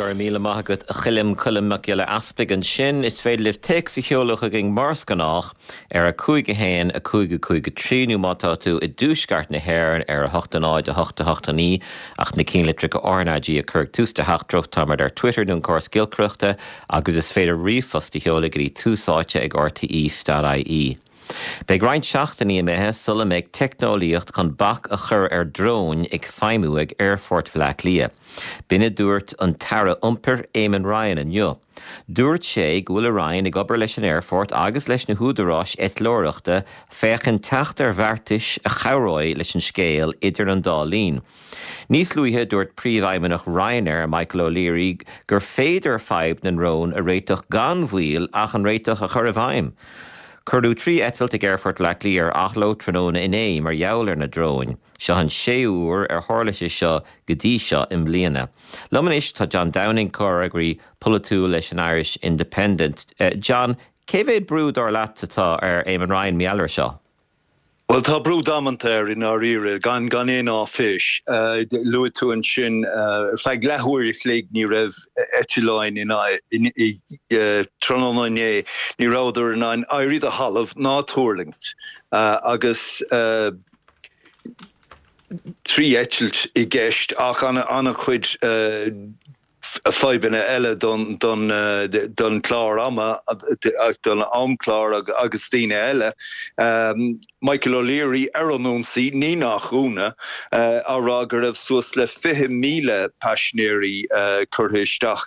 Go raibh míle maith agat a Choilm, Colm Mac Giolla Easpaig ansin. Is féidir libh téacs a sheoladh chugainn mar is gnách ar 5 1 5 5 3 nó má tá tú i dtuaisceart na hÉireann ar 8 0 8 8 9 ach na cinnlitreacha RnaG a chur ag tús do theachtaireacht. Táimid ar Twitter nó an córas giolcaireachta agus is féidir ríomhphost a sheoladh go dtí tús áite ag rte.ie. Beidh roinnt seachtainí imithe sula mbeidh teicneolaíocht chun bac a chur ar dróin ag feidhmiú ag Aerfort Bhaile Átha Cliath. B'in a dúirt an tAire Iompair Eamon Ryan inniu. Dúirt sé go bhfuil a Roinn ag obair leis an aerfort agus leis na húdaráis eitleoireachta féachaint teacht ar bheartais a chabhróidh leis an scéal idir an dá linn. Níos luaithe, dúirt Príomhfheidhmeannach Ryanair, Michael O'Leary, gur féidir fadhb na ndrón a réiteach gan mhoill ach an réiteach a chur i bhfeidhm. Cuireadh 3 eitilt ag Aerfort Bhaile Átha Cliath ar athló tráthnóna inné mar gheall ar na dróin. Seo an séú huair ar tharla sé seo go dtí seo i mbliana. Liom anois tá John Downing, comhfhreagraí polaitiúil leis an Irish Independent. John, cé mhéad brú dar leat atá ar Eamon Ryan mar gheall air seo? Bhuel, tá brú damanta air i ndáiríre, gan gan aon áiféis. Luaigh tú ansin, ar feadh leathuair a chloig ní raibh eitleáin in tráthnóna inné, ní rabhadar in ann éirí de thalamh ná tuirlingt agus 3 eitilt i gceist ach an-chuid fadhbanna eile don chlár ama, don amchlár agus daoine eile. Michael O'Leary ar an ionsaí, ní nach ionadh, á rá go raibh suas le 20,000 paisinéirí curtha isteach,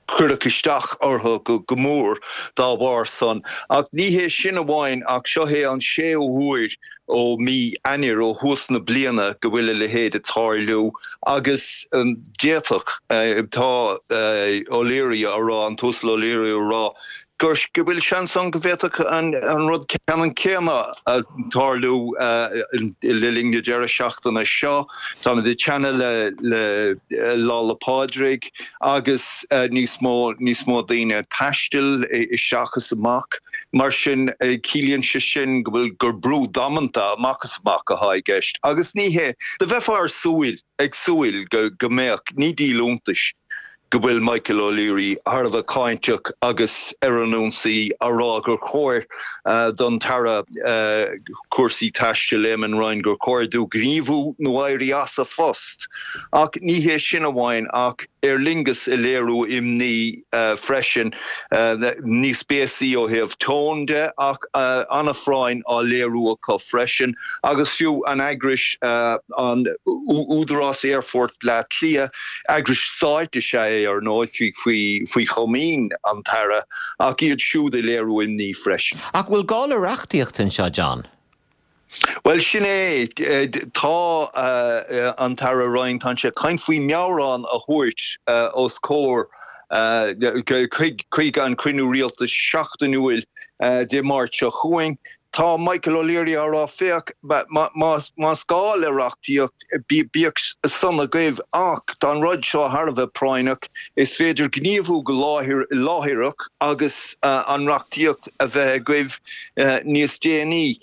cuireadh isteach orthu go mór dá bharr san. Ach ní hé sin amháin ach seo é an séú huair ó mí Eanáir, ó thús na bliana, go bhfuil a leithéid ag tarlú agus d'fhéadfadh, tá O'Leary á rá, an tUasal O'Leary á rá, gur, go bhfuil seans ann go bhféadfadh an rud ceannann céanna tarlú le linn na deireadh seachtaine seo. Táimid ag teannadh le Lá 'le Pádraig agus níos mó, níos mó daoine ag taisteal isteach is amach. Mar sin, ciallaíonn sé sin go bhfuil, gur brú damanta amach is amach atá i gceist. Agus ní hé, do bheifeá ar súil, ag súil go, go mbeadh, ní díol iontais go bhfuil Michael O'Leary thar a bheith cáinteach agus ar an ionsaí, á rá gur chóir don tAire Cúrsaí Taistil, Eamon Ryan, gur chóir dó gníomhú nó éirí as a phost. Ach ní hé sin amháin, ach Aer Lingus ag léiriú imní freisin, níos béasaí ó thaobh tone de ach an-phráinn á léiriú acu freisin agus fiú an eagrais, an Údarás Aerfort Bleá Cliath, eagrais stáit is ea é ar ndóigh, faoi chomaoin an tAire, ach iad siúd ag léiriú imní freisin. Ach bhfuil gá le reachtaíocht anseo, John? Bhuel, sin é. Tá an tAire Ryan, tá sé ag caint faoi mheabhrán a thabhairt os comhair chuig an cruinniú rialtais seachtainiúil Dé Máirt seo chugainn. Tá Michael O'Leary á rá, féach, más gá le reachtaíocht, bíodh san agaibh ach tá an rud seo thar a bheith práinneach, is féidir gníomhú go láithreach agus an reachtaíocht a bheith agaibh níos déanaí.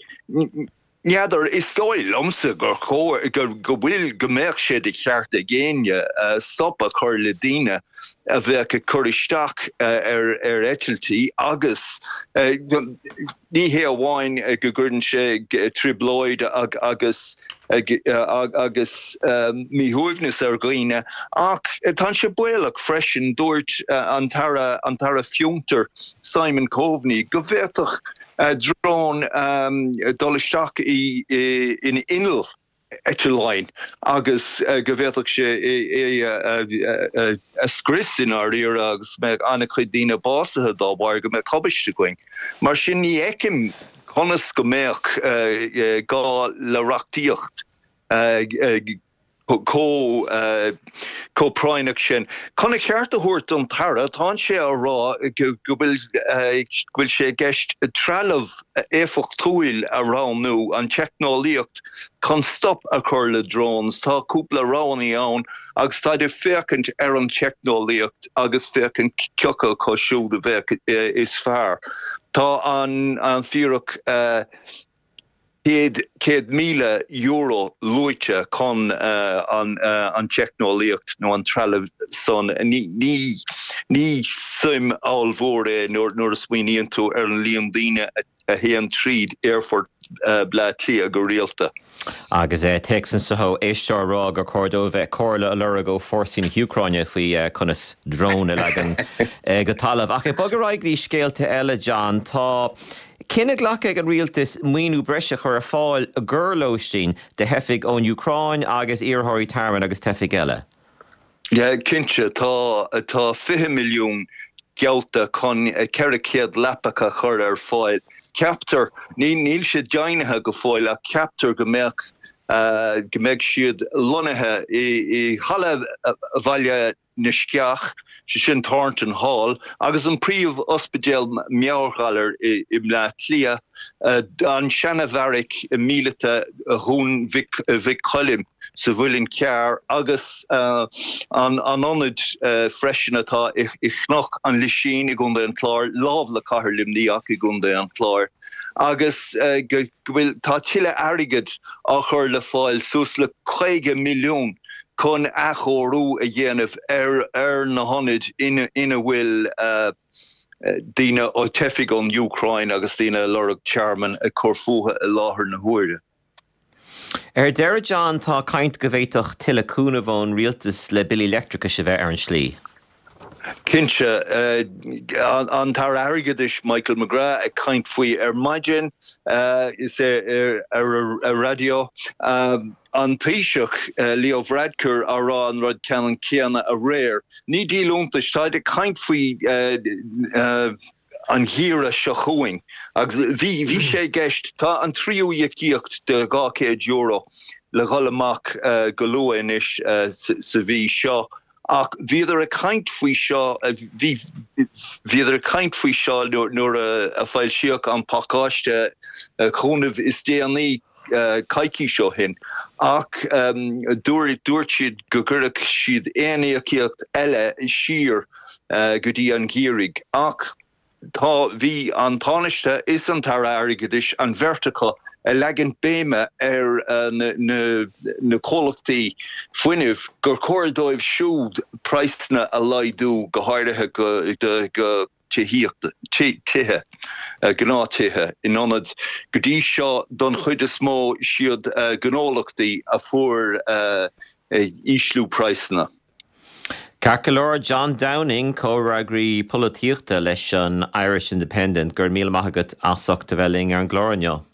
N'fheadar, is dóigh liomsa gur chóir, go bhfuil, go mbeadh sé de cheart ag éinne stop a chur le daoine a bheadh ag cur isteach ar eitiltí agus ní hé amháin go gcuireann sé trioblóid agus agus míshuaimhneas ar dhaoine ach tá sé baolach freisin. Dúirt an tAire, an tAire Fiontair Simon Coveney go bhféadfadh drón dul isteach in inneall eitleáin agus go bhféadfadh sé é a scrios i ndáiríre agus go mbeadh an-chuid daoine básaithe dá bharr, go mbeadh tubaiste againn. Mar sin ní fheicim conas go mbeadh gá le reachtaíocht. chomh práinneach sin. Chun a cheart a thabhairt don tAire, tánn sé á rá go bhfuil go bhfuil sé i gceist trealamh éifeachtúil a roghnú, an teicneolaíocht chun stop a chur le drones. Tá cúpla roghanna ann agus táid ag féachaint ar an teicneolaíocht agus féachaint cioca acu siúd a bheadh is fearr. Tá an fíric. €100,000 luaite chun an teicneolaíocht nó an trealamh san. Ní suim ollmhór é nuair a smaoiníonn tú ar an líon daoine a théann tríd aerfort Bleá Cliath go rialta. Agus téacs anseo ó éisteoir ag rá gur chóir dóibh comhairle a lorg ó fórsaí na hÚcráine faoi conas drón a leagan go talamh. Ach ag bogadh ar aghaidh go dtí scéalta eile, John, tá cinneadh glactha ag an rialtas maoiniú breise a chur ar fáil i gcomhair lóistín do theifigh ón Úcráin agus iarrthóirí tearmainn agus teifigh eile. Yeah, cinnte, tá, tá 20 milliún geallta chun 400 leapacha a chur ar fáil. Ceaptar, ní, níl sé deimhnithe go fóill ach ceaptar go mbeadh, go mbeidh siad lonnaithe i, i Halla Bhaile na Sceach, sé sin Thornton Hall, agus an príomh-ospidéal meabhairghalair i, i mBleá Cliath, an seana-bheairic míleata Dhún Mhic, Mhic Choilm. sa Mhuileann Cearr agus an ionad freisin atá i gCnoc an Lisín i gContae an Chláir, lámh le Cathair Luimnigh ach i gContae an Chláir, agus go bhfuil, tá tuilleadh airgid á chur le fáil, suas le 50 milliún chun athchóiriú a dhéanamh ar na hionaid ina bhfuil daoine, teifigh ón Úcráin agus daoine ag lorg tearmainn ag cur fúthu i láthair na huaire. Ar deireadh, John, tá caint go bhféadfadh tuilleadh cúnaimh ón rialtas le billí leictreachais a bheith ar an slí. Cinnte. An tAire Airgeadais Michael McGrath ag caint faoi ar maidin is é ar an raidió. An Taoiseach Leo Varadkar á rá an rud ceannann céanna aréir. Ní díol iontais, táid ag caint faoi an gheimhreadh seo chugainn agus bhí, bhí sé i gceist, tá an tríú íocaíocht de €200 le dhul amach go luath anois sa mhí seo ach bhíodar ag caint faoi seo, bhí, bhíodar ag caint faoi seo nuair a foilsíodh an pacáiste cúnaimh is déanaí coicís ó shin ach dúirt, dúirt siad go gcuirfeadh siad aon íocaíocht eile siar go dtí an geimhreadh. Ach tá, bhí an Tánaiste is an tAire Airgeadais, an bheirt acu, ag leagan béime ar na comhlachtaí fuinnimh gur chóir dóibh siúd praghsanna a laghdú, go háirithe do tithíocht, tithe, gnáth-tithe, in ionad, go dtí seo, don chuid is mó, siad gnólachtaí a fuair ísliú praghsanna. Ceart go leor, John Downing, comhfhreagraí polaitíochta leis an Irish Independent, go raibh míle maith agat as ucht a bheith linn ar an gclár inniu.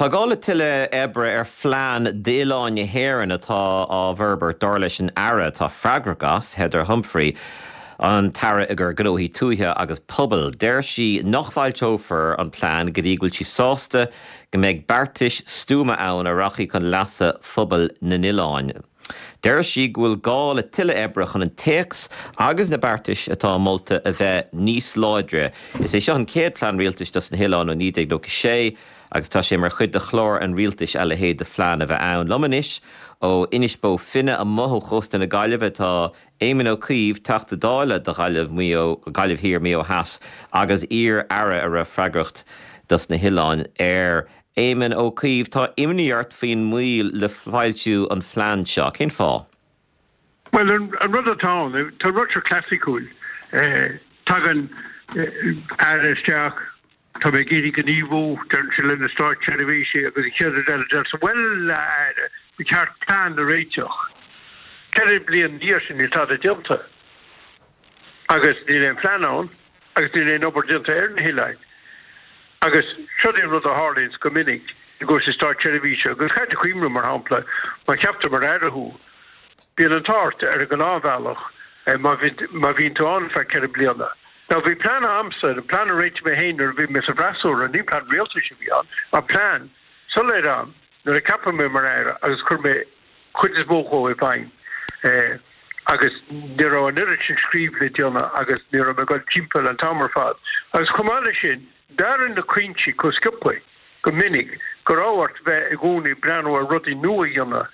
Tá gá le tuilleadh oibre ar phlean d'oileáin na hÉireann atá á bhforbairt, dar leis an Aire atá freagrach as, Heather Humphrey, an tAire i gcomhair Gnóthaí Tuaithe agus Pobail. Deir sí nach bhfoilseofar an plean go dtí go bhfuil sí sásta go mbeidh beartais stuama ann a rachaidh chun leasa phobail na n-oileán. Deir sí go bhfuil gá le tuilleadh oibre chun an téacs agus na beartais atá molta a bheith níos láidre. Is é seo an chéad plean rialtais dos na hoileáin ó 1996 agus tá sé mar chuid de chlár an rialtais a leithéid de phlean a bheith ann. Liom anois ó Inis Bó Finne amuigh ó chósta na Gaillimhe tá Éamon Ó Cuív, Teachta Dála do Ghaillimh, Maigh Eo, Gaillimh Thiar, Maigh Eo Theas agus iar-aire a raibh freagracht dos na hoileáin air. Éamon Ó Cuív, tá imní ort faoin moill le foilsiú an phlean seo. Cén fáth? Bhuel, an rud atá ann, tá an rud seo clasaiceach. Tagann aire isteach, tá mé ag iarraidh gníomhú, deireann sé le na státseirbhísigh agus an chéad rud eile deir sé, bhuel, a aire, ba cheart plean a réiteach. Ceithre bliana ina dhiaidh sin níl tada déanta agus níl aon phlean ann. agus níl aon obair déanta ar na hoileáin. Agus seo é an rud a tharlaíonns go minic i gcúrsaí státseirbhíse, agus caithfidh tú cuimhneamh, mar shampla, má cheaptar mar aire thú, bíonn an t-ádh ort ar an ngnáthbhealach má má bhíonn tú ann ar feadh 4 bliana. Now bhí plean a'msa, an plean a réitigh mé féin nuair a bhí mé sa bhfreasúra, ní plean rialtais a bhí ann, ach plean soiléir a'm nuair a ceapadh mé mar aire agus chuir mé chuid is mó dhó i bhfeidhm agus ní raibh an oiread sin scríobh le déanamh agus ní raibh mé ag dul timpeall an t-am ar fad. Agus chomh maith leis sin, d'athraigh na cuinsí chomh sciobtha go minic go raibh ort bheith i gcónaí ag breathnú ar rudaí nua a dhéanamh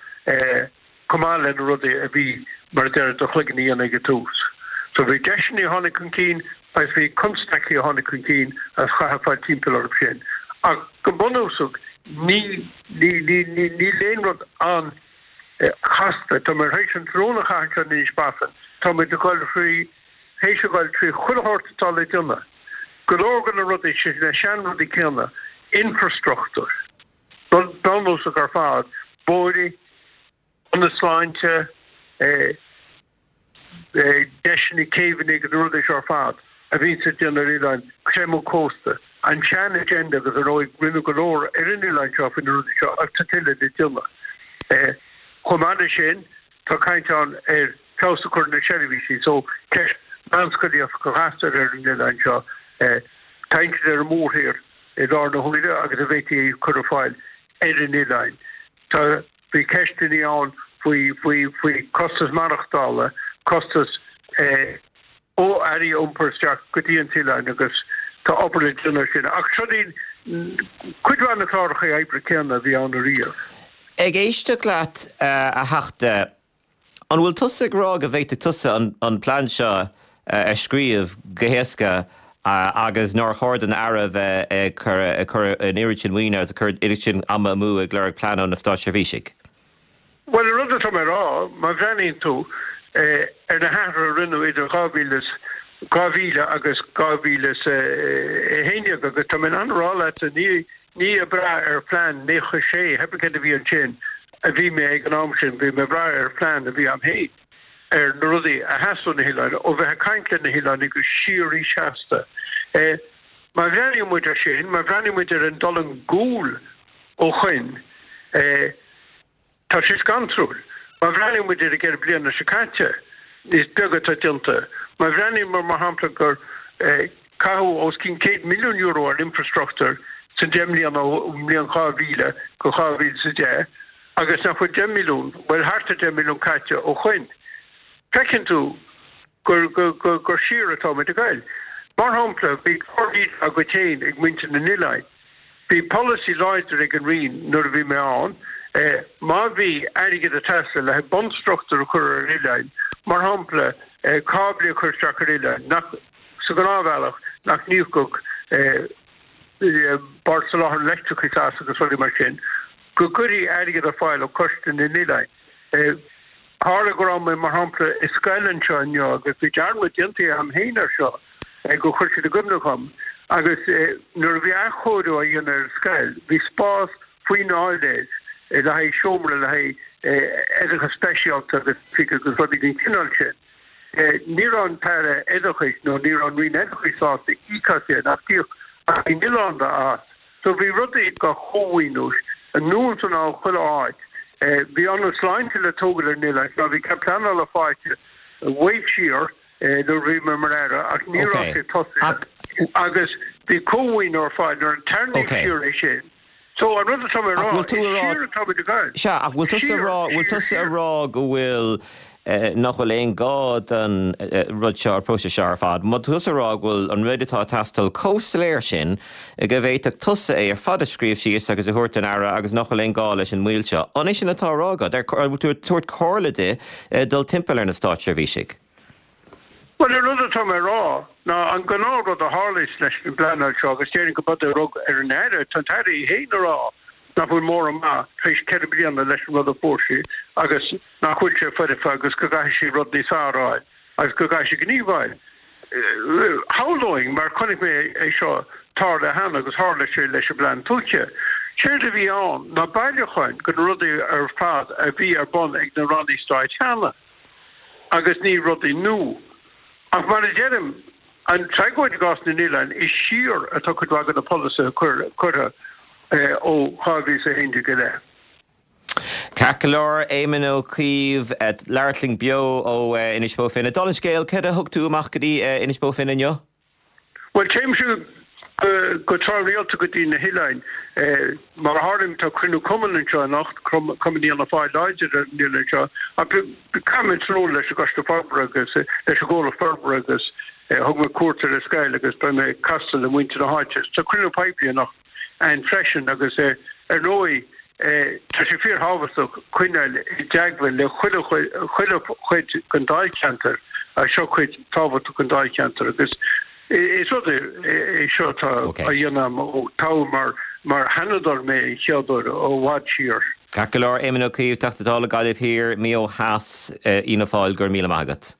chomh maith le na rudaí a bhí, mar a deir, do chloigeann a dhéanamh ag an tús. So bhí deiseanna a tháinig chun cinn agus bhí constaicí a tháinig chun cinn agus chaithfeá fáil timpeall orthu sin. Ach go bunúsach ní, ní, ní, ní, níl aon rud an-chasta. Tá mé tar éis an tráthnóna a chaitheamh anseo in Inis Bofin. Tá muid ag dul thrí, théis a dhul trí chuile shórt atá le déanamh. Go leor de na rudaí sin, na seanrudaí céanna, infrastruchtúr, rud bunúsach ar fad, bóithre, ionaid sláinte, deiseanna céibheanna agus na rudaí seo ar fad a bhíonns le déanamh ar oileáin, creimeadh cósta, an sean-agenda agus ar ndóigh rinneadh go leor ar an oileán seo faoi na rudaí seo ach tá tuilleadh le déanamh. Chomh maith leis sin, tá caint ann ar feabhas a chur ar na seirbhísí so ceist meánscolaíocht do ghasúir ar an oileán seo, tá insint ar an mórthír i láthair na huaire agus an bhféadfaí é a chur ar fáil ar an oileán. Tá Bhí ceisteanna ann faoi, faoi, faoi costas maireachtála, costas ó earraí a iompar isteach go dtí an t-oileán agus tá obair le déanamh air sin. Ach seo iad cuid mhaith na cláracha oibre céanna a bhí ann ariamh. Ag éisteacht leat, a Theachta, An bhfuil tusa ag rá go bhféadfadh tusa an plean seo a scríobh go héasca agus nár chóir don Aire a bheith ag cur an oiread sin maoine agus ag cur an oiread sin ama amú ag lorg plean ó na státseirbhísigh? Bhuel, an rud atá mé a rá, má bhreathnaíonn tú ar na hathruithe a rinneadh idir 2000 2000 agus 2011 agus tá mé in ann a rá leatsa, ní Ní ag brath ar phlean 96, pé céard a bhí ansin, a bhí mé ag an am sin, bhí mé ag brath ar phlean a bhí a'm féin, ar na rudaí a theastaigh ó na hoileáin, ó bheith ag caint le na hoileánaigh go síoraí seasta. Má bhreathnaíonn muid ar sin, má bhreathnaíonn muid ar an dul i gcúl ó shoin, Tá sé scantrúil. Má bhreathnaíonn muid ar an gceithre bliana seo caite, is beag atá déanta. Má bhreathnaíonn muid, mar shampla, gur caitheadh os cionn €100 milliún ar infrastruchtúr san deich mbliana ón mbliain 2000 go 2010 agus nach bhfuil 10 milliún, bhuel thart ar 10 milliún caite ó shoin, feiceann tú gur, gur, gur siar atá muid ag goil. Mar shampla, bhí clár Leader agat féin ag muintir na n-oileáin. Bhí polasaí láidir ag an Roinn nuair a bhí mé ann, má bhí airgead ag teastáil le haghaidh bunstruchtúr a chur ar oileáin, mar shampla cáblaí a chur isteach ar oileáin, nach, sa ghnáthbhealach, nach n-íocfadh Bord Soláthair an Leictreachais as agus rudaí mar sin, go gcuirfí airgead ar fáil ó Choiste na nOileán. Tharla go raibh mé, mar shampla, i scoil anseo inniu agus bhí dearmad déanta agam féin air seo, gur chuir siad i gcuimhne dhom, agus nuair a bhí athchóiriú á dhéanamh ar an scoil, bhí spás faoin áiléar le haghaidh seomra le haghaidh oideachas speisialta agus agus rudaí den chineál sin. Ní raibh an tAire Oideachais nó ní raibh an Roinn Oideachais sásta íoc as sin ach d'íoc an Roinn Oileánda as. So bhí rudaí dhá chómhaoiniú anonn is anall chuile áit. Bhí ionad sláinte le tógáil ar an oileán seo, bhí cead pleanála faighte way siar nuair a bhí mé mar Aire ach ní raibh sé tosaithe agus bhí cómhaoiniú ar fáil nuair a tarraingíodh siar é sin. So an rud atá mé a rá, is siar atá muid ag goil. Sea, ach bhfuil tusa a rá, bhfuil tusa a rá go bhfuil, nach bhfuil aon gá don rud seo, an próiseas seo ar fad? Má tá tusa a rá go bhfuil an rud atá ag teastáil chomh soiléir sin go bhféadfadh tusa é ar fad a scríobh síos agus a thabhairt don Aire agus nach bhfuil aon gá leis an moill seo, an é sin atá á rá agat? An bhfuil tú ag tabhairt comhairle di dul timpeall ar na státseirbhísigh? Bhuel, an rud atá mé a rá ná an gnáthrud a tharlaíos leis an bpleanáil seo, agus déarfainn go b'fhéidir rud ar an Aire, tá an tAire í féin a rá nach bhfuil mórán maith tar éis 4 bliana leis an rud a fuair sí agus nach bhfuil sé foirfe agus go gcaithfidh sí rud níos fearr a fháil agus go gcaithfidh sí gníomhú. Shamhlóinn, mar chonaic mé é seo tarlú cheana agus tharla sé leis an bPlean Tuaithe. Séard a bhí ann ná bailiúcháin de na rudaí ar fad a bhí ar bun ag na rannaí stáit cheana. agus ní rudaí nua. Ach mar a deirim, an tragóid i gcás na n-oileán, is siar atá cuid mhaith de na polasaithe curtha ó 2011 i leith. Ceart go leor, Éamon Ó Cuív, ag labhairt linn beo ó Inis Bó Finne. Dála an scéil, céard a thug tú amach go dtí Inis Bó Finne inniu? Bhuel, téimse go tráthrialta go dtí na hoileáin. Mar a tharlaíonn, tá cruinniú cumainn anseo anocht, Cumann Fhianna Fáil láidir ar an oileán seo. Ach caithfidh mé tráthnóna leis an gCoiste Forbartha agus leis an gComhlacht Forbartha agus thug mé cuairt ar an scoil agus beidh mé ag castáil le muintir na háite. Tá cruinniú poiblí anocht ann freisin agus ar ndóigh tá sé fíorthábhachtach coinneáil i dteagmháil le chuile chuid den dáilcheantar. Ach seo cuid tábhachtach den dáilcheantar agus is rud é seo atá á dhéanamh agam ó toghadh mar mar Sheanadóir mé an chéad uair ó i bhfad siar. Ceart go leor, Éamon Ó Cuív, Teachta Dála Gaillimh Thiar, Maigh Eo Theas, Fhianna Fáil, go raibh míle maith agat.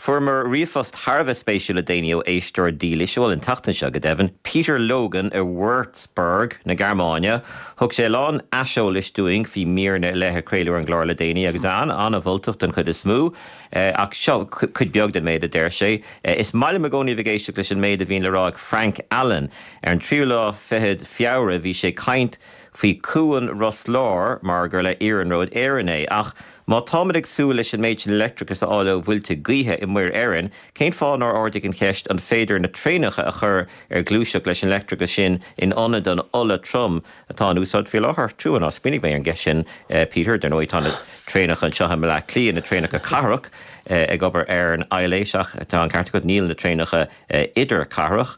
Fuaireamar ríomhphost thar a bheith spéisiúil le déanaí ó éisteoir dílis, bhuel an tseachtain seo go deimhin, Peter Logan i Würzburg na Gearmáine. Thug sé a lán aiseolais dúinn faoi mhíreanna ar leith a craoladh ar an gclár le déanaí agus an-mholtach den chuid is mó. Ach seo cuid beag den méid a deir sé. Is maith liom i gcónaí a bheith ag éisteacht leis an méid a bhíonn le rá ag Frank Allen. Ar an tríú lá fichead Feabhra bhí sé ag caint faoi Cuan Ros Láir mar gur le Iarnród Éireann é. Ach má táimid ag súil leis an méid sin leictreachais a fháil ó mhuilte gaoithe i Muir Éireann, cén fáth nár ardaigh an cheist an féidir na traenacha a chur ar gluaiseacht leis an leictreachas sin in ionad an ola trom atá in úsáid faoi láthair? Trua nár smaoinigh mé ar an gceist sin, Peter. Dar ndóigh tá na traenacha anseo i mBleá Cliath, na traenacha cathrach, ag obair ar an aibhléis ach tá an ceart agat, níl na traenacha idirchathrach.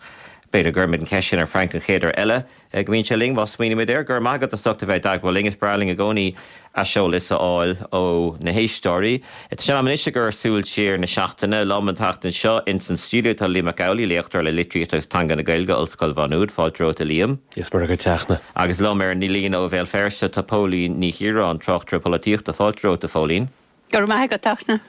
B'fhéidir go gcuirfimid an cheist sin ar Frank an chéad uair eile. go mbíonn sé linn, má smaoinímid air. Go raibh maith agat as ucht a bheith i dteagmháil linn. Is breá linn i gcónaí aiseolas a fháil ó na héisteoirí. Tá sé in am anois ag cur súil siar na seachtaine. Liom an tseachtain seo ins an stiúideo tá Liam Mac Amhlaigh, léachtóir le Litríocht agus Teanga na Gaeilge, Ollscoil Mhá Nuad. Fáilte romhat a Liam. Is maith agat a Fhachtna. Agus liom ar an líne ó Bhéal Feirste tá Póilín Ní Chiaráin, tráchtaire polaitíochta. Fáilte romhat a Phóilín. Go raibh maith agat, a Fhachtna.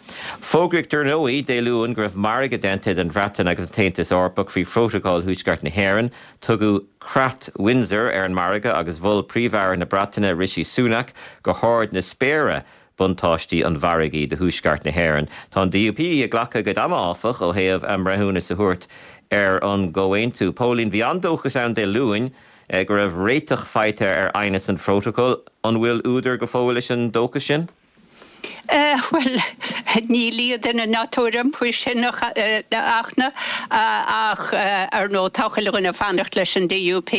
Fógraíodh dar ndóigh Dé Luain go raibh margadh déanta idir an Bhreatain agus an tAontas Eorpach faoi Phrótacal Thuaisceart na hÉireann. Tugadh Creat Windsor ar an margadh agus mhol Príomh-Aire na Breataine Rishi Sunak go hard na spéire buntáistí an mhargaidh do Thuaisceart na hÉireann. Tá an DUP ag glacadh a gcuid ama, áfach, ó thaobh a mbreithiúnas a thabhairt ar an gcomhaontú. Póilín, bhí an-dóchas ann Dé Luain go raibh réiteach faighte ar aighneas an Phrótacail. An bhfuil údar go fóill leis an dóchas sin? Bhuel, ní lia duine ná tuairim faoi sin, a Fhachtna, ach ar ndóigh tá chuile dhuine ag fanacht leis an DUP.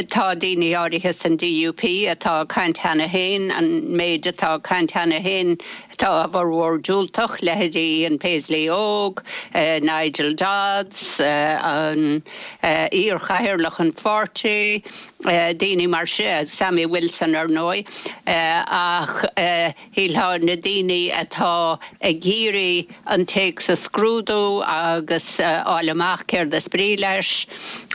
Tá daoine áirithe san DUP atá ag caint cheana féin, an méid atá ag caint cheana féin, tá a bhformhór diúltach, leithéidí Ian Paisley óg, Nigel Dodds, an iar-chathaoirleach an pháirtí, daoine mar sin, Sammy Wilson ar ndóigh, ach shílfeá na daoine atá ag iarraidh an téacs a scrúdú agus fháil amach céard is brí leis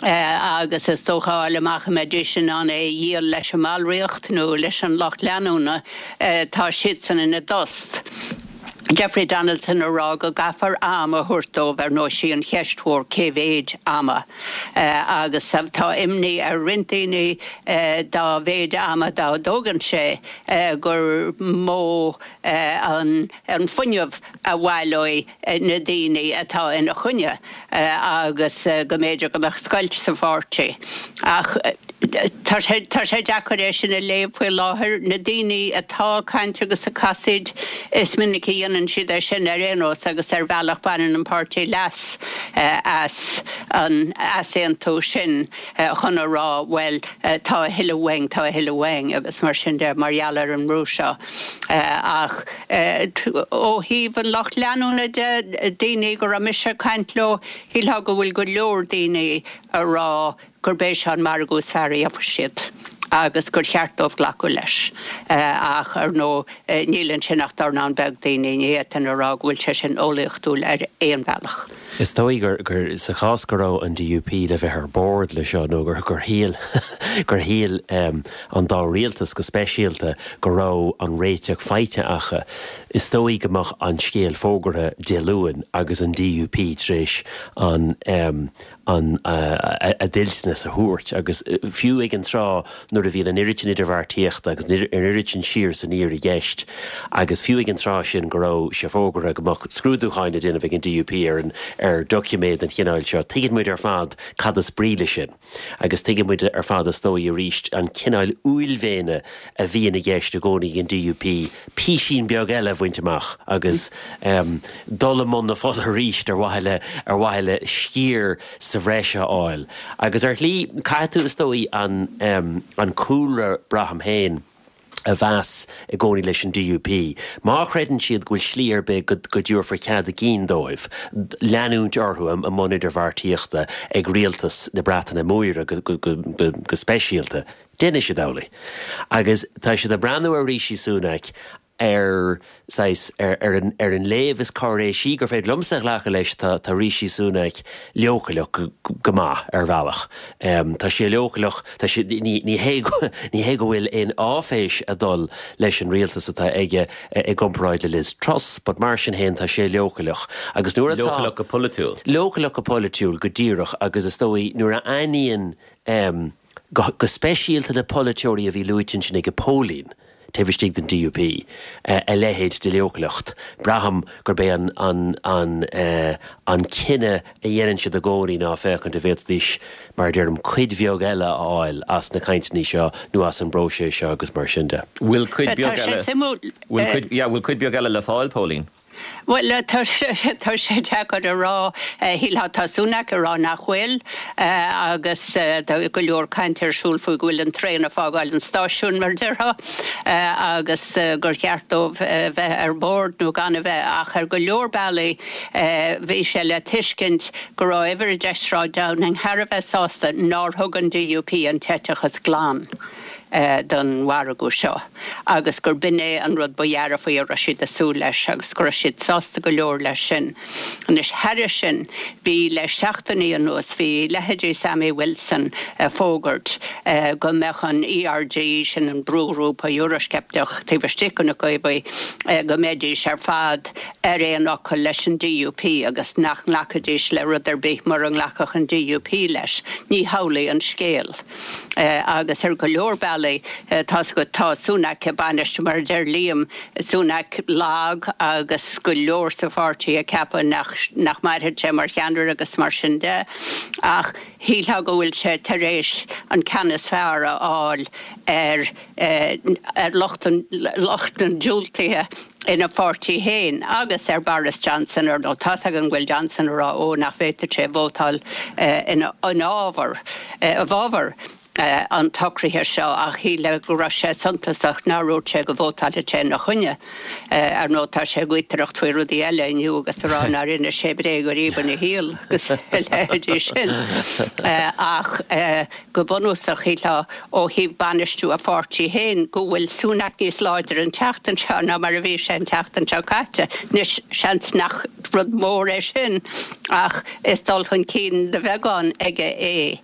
agus is dócha a fháil amach an mbeidís in ann é a dhíol leis an mballraíocht nó leis an lucht leanúna, tá siadsan ina dtost. Jeffrey Donaldson a rá go gcaithfear am a thabhairt dóibh, ar ndóigh sí an cheist mhór cé mhéid ama agus tá imní ar roinnt daoine dá mhéid ama dá dtógann sé gur mó an fuinneamh a bhaileoidh na daoine atá ina choinne agus go mb'fhéidir go mbeadh scoilt sa pháirtí. Ach tá sé tá sé deacair é sin a léamh faoi láthair. Na daoine atá ag caint agus ag casaoid, is minic a dhéanann siad é sin ar aon nós agus ar bhealach baineann an páirtí leas as an easaontú sin chun a rá bhuel tá a thuilleadh uainn, tá a thuilleadh uainn agus mar sin de mar gheall ar an mbrú seo. Ach ó thaobh an lucht leanúna de, daoine go raibh mise ag caint leo, shílfeá go bhfuil go leor daoine a rá gurb é seo an margadh is fearr a gheobhaidh siad agus gur cheart dóibh glacadh leis. Ach, ar ndóigh, níl ansin ach dornán beag daoine, ní fhéadfainn a rá go bhfuil sé sin eolaíochtúil ar aon bhealach. Is dóigh gur, gur, sa chás go raibh an DUP le bheith ar bord le seo nó gur, gur shíl, gur shíl an dá rialtas go speisialta go raibh an réiteach faighte acu, is dóigh go mbeadh an scéal fógartha Dé Luain agus an DUP tar éis an, an a dtoilteanas a thabhairt agus fiú ag an tráth nuair a bhíonn an oiread sin idirbheartaíochta agus an oiread sin siar is aniar i gceist agus fiú ag an tráth sin go raibh sé fógartha go mbeadh scrúdúcháin le déanamh ag an DUP ar an ar doiciméad den chineál seo, tuigeann muid ar fad cad is brí leis sin agus tuigeann muid ar fad is dóigh arís an cineál uaillmhéine a bhíonn i gceist i gcónaí ag an DUP písín beag eile a bhaint amach agus dul i mbun na fola arís ar mhaithe le ar mhaithe le sciar sa bhreis a fháil. Agus ar shlí, caithfidh tú, is dóigh, an an cúlra, braithim féin. a bheas i gcónaí leis an DUP. Má chreideann siad go bhfuil slí ar bith go dtabharfar cead a gcinn dóibh leanúint orthu i mbun idirbheartaíochta ag rialtas na Breataine Móire go speisialta, déanfaidh siad amhlaidh. Agus tá siad ag breathnú ar Rishi Sunak ar saghas, ar an, ar an léamh is cáiréisí gur féidir liomsa a ghlacadh leis, tá, tá Rishi Sunak leochaileach go, go maith ar bhealach. Tá sé leochaileach, tá sé, ní, ní hé go, ní hé go bhfuil aon áiféis ag dul leis an rialtas atá aige i gcomparáid le Liz Truss, but mar sin féin tá sé leochaileach. Agus nuair atá. Leochaileach go polaitiúil. Leochaileach go polaitiúil, go díreach, agus is dóigh nuair a aithníonn, go, go speisialta na polaiteoirí a bhí luaite ansin ag Póilín, taobh istigh den DUP, a leithéid de leochaileacht. Braithim gurb é an an an cinneadh a dhéanann siad i gcónaí ná féachaint an bhféadfaidís, mar a deirim, cuid bheag eile a fháil as na cainteanna seo nó as an bpróiseas seo agus mar sin de. Bhfuil cuid beag eile, bhfuil cuid, yeah, bhfuil cuid beag eile le fáil, Póilín? Bhuel, tá sé deacair a rá. Shílfeá tá Sunak ag rá nach bhfuil agus tá go leor cainte ar siúl faoi go bhfuil an traein ag fágáil an stáisiúin, mar a déarfá, agus gur cheart dóibh bheith ar bord nó gan a bheith. Ach ar go leor bealaí bhí sé le tuiscint go raibh Uimhir 10 Sráid Downing thar a bheith sásta nár thug an DUP an t-eiteachas glan. don mhargadh seo agus gur b'in é an rud ba dhearfaí a raibh siad ag súil leis agus go raibh siad sásta go leor leis sin. Anois, thairis sin, bhí le seachtainí anuas, bhí leithéidí Sammy Wilson ag fógairt go mbeadh an ERG, sin an brúghrúpa Eurosceipteach taobh istigh de na Caomhaigh, go mbeidís ar fad ar aon fhocal leis an DUP agus nach nglacfaidís le rud ar bith mura nglacfadh an DUP leis. Ní hamhlaidh an scéal. Agus ar go leor bealaí, tá's agat, tá Sunak ag bainistiú, mar a deir Liam, Sunak lag agus go leor sa pháirtí ag ceapadh nach, nach mairfidh sé mar cheannaire agus mar sin de. Ach shílfeá go bhfuil sé tar éis an ceann is fearr a fháil ar, ar lucht an, lucht an diúltaithe ina pháirtí féin agus ar Boris Johnson, ar ndóigh. Tá's againn go bhfuil Johnson ag rá ó nach bhféadfadh sé vótáil ina fhábhar, i bhfabhar an tsocraithe seo ach shílfeá go raibh sé suntasach nár dhúirt sé go vótálfadh sé ina choinne. Ar ndóigh tá sé ag gaotaireacht faoi rudaí eile inniu agus ag rá nár inis sé bréag ariamh ina shaol agus a leithéidí sin. Ach go bunúsach shílfeá ó thaobh bainistiú a pháirtí féin, go bhfuil Sunak níos láidre an tseachtain seo ná mar a bhí sé an tseachtain seo caite. Anois, seans nach rud mór é sin ach is dul chun cinn de bheagán aige é.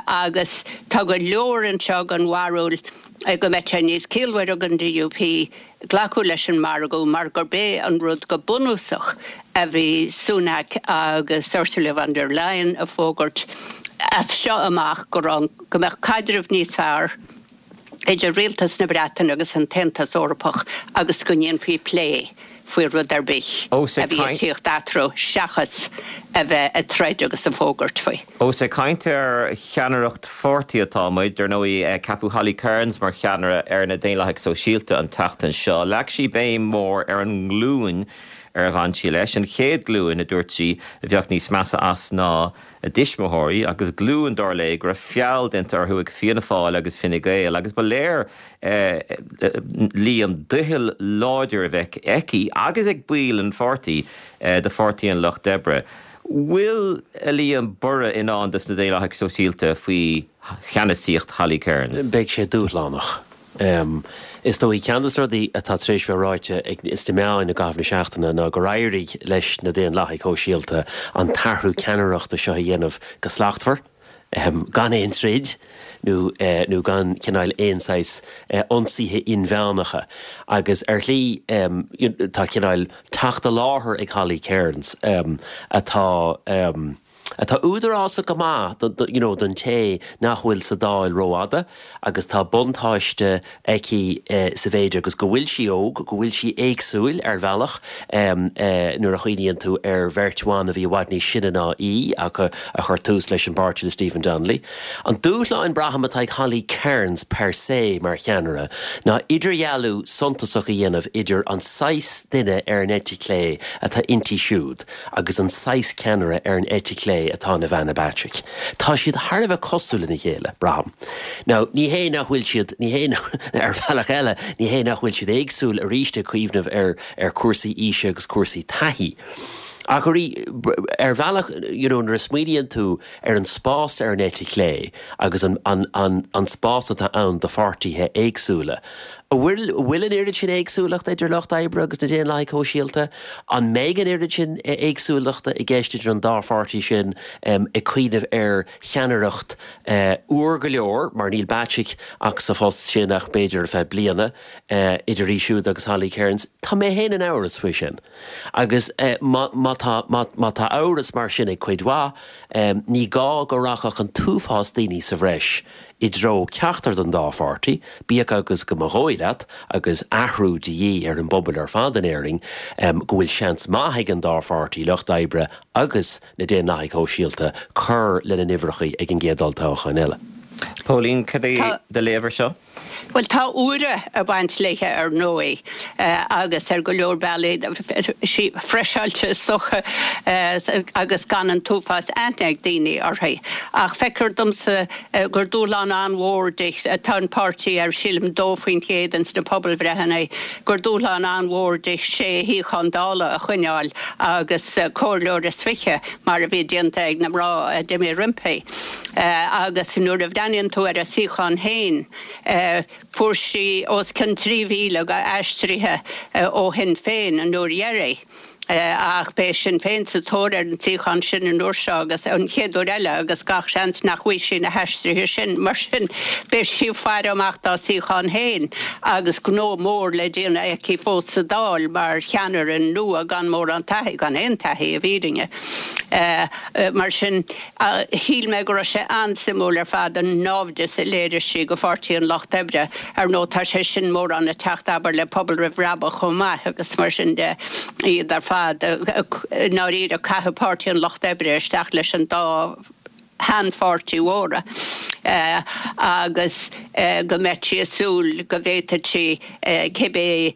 Agus tá go leor anseo den bharúil go mbeidh sé níos ciallmhaire don DUP glacadh leis an margadh mar gurb é an rud go bunúsach a bhí Sunak agus Ursula von der Leyen ag fógairt as seo amach go raibh go mbeadh caidreamh níos fearr idir rialtas na Breataine agus an tAontas Eorpach agus go ndéanfaí plé faoi rud ar bith a bhí ag tíocht eatarthu seachas a bheith ag troid agus ag fógairt faoi. Ós ag caint ar cheannaireacht pháirtí atá muid, ar ndóigh, ceapadh Holly Cairns mar cheannaire ar na Daonlathaigh Sóisialta an tseachtain seo. Leag sí béim mhór ar an nglúin ar bhain sí leis, an chéad ghlúin, a dúirt sí, a bheadh níos measa as ná a dtuismitheoirí, agus glúin, dar léi, go raibh feall déanta orthu ag Fianna Fáil agus Fine Gael, agus ba léir Liam, doicheall láidir a bheith aici agus ag baill an pháirtí do Pháirtí an Lucht Oibre. Bhfuil, a Liam, borradh i ndán dos na Daonlathaigh Sóisialta faoi cheannasaíocht Holly Cairns? Beidh sé dúshlánach. Is dóigh, ceann de na rudaí atá tar éis bheith ráite ag sna meáin i gcaitheamh na seachtaine ná gur éirigh leis na Daonlathaigh Shóisialta an t-athrú ceannaireachta seo a dhéanamh go slachtmhar, gan aon troid nó nó gan cineál aon saghas ionsaithe inmheánacha. Agus ar shlí tá cineál teacht i láthair ag Holly Cairns atá atá údarásach go maith you know don té nach bhfuil sa Dáil rófhada agus tá buntáiste aici sa mhéid agus go bhfuil sí óg, go bhfuil sí éagsúil ar bhealach nuair a chuimhníonn tú ar bheirt bhan a bhí i bhfad níos sine ná í ach a chuir tús leis an bpáirtí le Stephen Donnelly. An dúshlán, braithim, atá ag Holly Cairns per se mar cheannaire ná idirdhealú suntasach a dhéanamh idir an saghas duine ar an eite chlé atá inti siúd agus an saghas ceannaire ar an eite chlé. chlé atá in Ivana Bacik. Tá siad thar a bheith cosúil lena chéile, braithim. Now, ní hé nach bhfuil siad, ní hé, ar bhealach eile, ní hé nach bhfuil siad éagsúil arís ag cuimhneamh ar, ar cúrsaí aoise agus cúrsaí taithí. Ach ar bhealach, you know, nuair a smaoiníonn tú ar an spás ar an eite chlé agus an, an, an, an spás atá ann do pháirtithe éagsúla, An bhfuil, an bhfuil an oiread sin éagsúlachta idir Lucht Oibre agus na Daonlathaigh Shóisialta? An mbeidh an oiread sin éagsúlachta i gceist idir an dá pháirtí sin, ag cuimhneamh ar cheannaireacht úr go leor, mar níl Bacik ach sa phost sin ach b'fhéidir ar feadh bliana, idir í siúd agus Holly Cairns? Tá mé féin in amhras faoi sin. Agus má, má tá, má, má tá amhras mar sin ag cuid mhaith, ní gá go rachadh an t-uafás daoine sa bhreis i dtreo ceachtar den dá pháirtí, bíodh agus go mba dhóigh leat, agus athrú de dhíth ar an bpobal ar fad in Éirinn, go bhfuil seans maith ag an dá pháirtí, Lucht Oibre agus na Daonlathaigh Shóisialta, cur lena n-uimhreacha ag an gcéad olltoghchán eile. Póilín, cad é do léamh ar seo? Bhuel, tá úire ag baint léithe ar ndóigh agus ar go leor bealaí sí freiseáilte is dócha agus gan an t-uafás aithne ag daoine uirthi. Ach feictear domsa gur dúshlán an-mhór di, tá an páirtí ar sílim 2% ins na pobalbhreitheanna, gur dúshlán an-mhór di sé shuíochán Dála a choinneáil agus comhairleoir is 20 mar a bhí déanta ag na mná a d'imigh roimpi. Agus nuair a bhreathnaíonn tú ar a suíochán féin, fuair sí os cionn 3,000 d'aistrithe ó Shinn Féin an uair dheiridh. Ach beidh Sinn Féin sa tóir ar an suíochán sin an uair seo agus an chéad uair eile agus gach seans nach bhfaighidh sí na haistrithe sin. Mar sin, beidh sí ag faire amach dá suíochán féin agus gnó mór le déanamh aici fós sa Dáil mar cheannaire nua gan mórán taithí, gan aon taithí i bhfírinne. Mar sin. Shíl mé go raibh sé an-suimiúil ar fad an náimhdeas a léirigh sí go Pháirtí an Lucht Oibre. Ar ndóigh tá sé sin mórán ag teacht, abair, le Pobal Roimh Bhrabach chomh maith agus mar sin de, iad ar fad i ndáiríre ag caitheamh Páirtí an Lucht Oibre isteach leis an dá sheanpháirtí mhóra agus go mbeadh sí ag súil go bhféadfadh sí cibé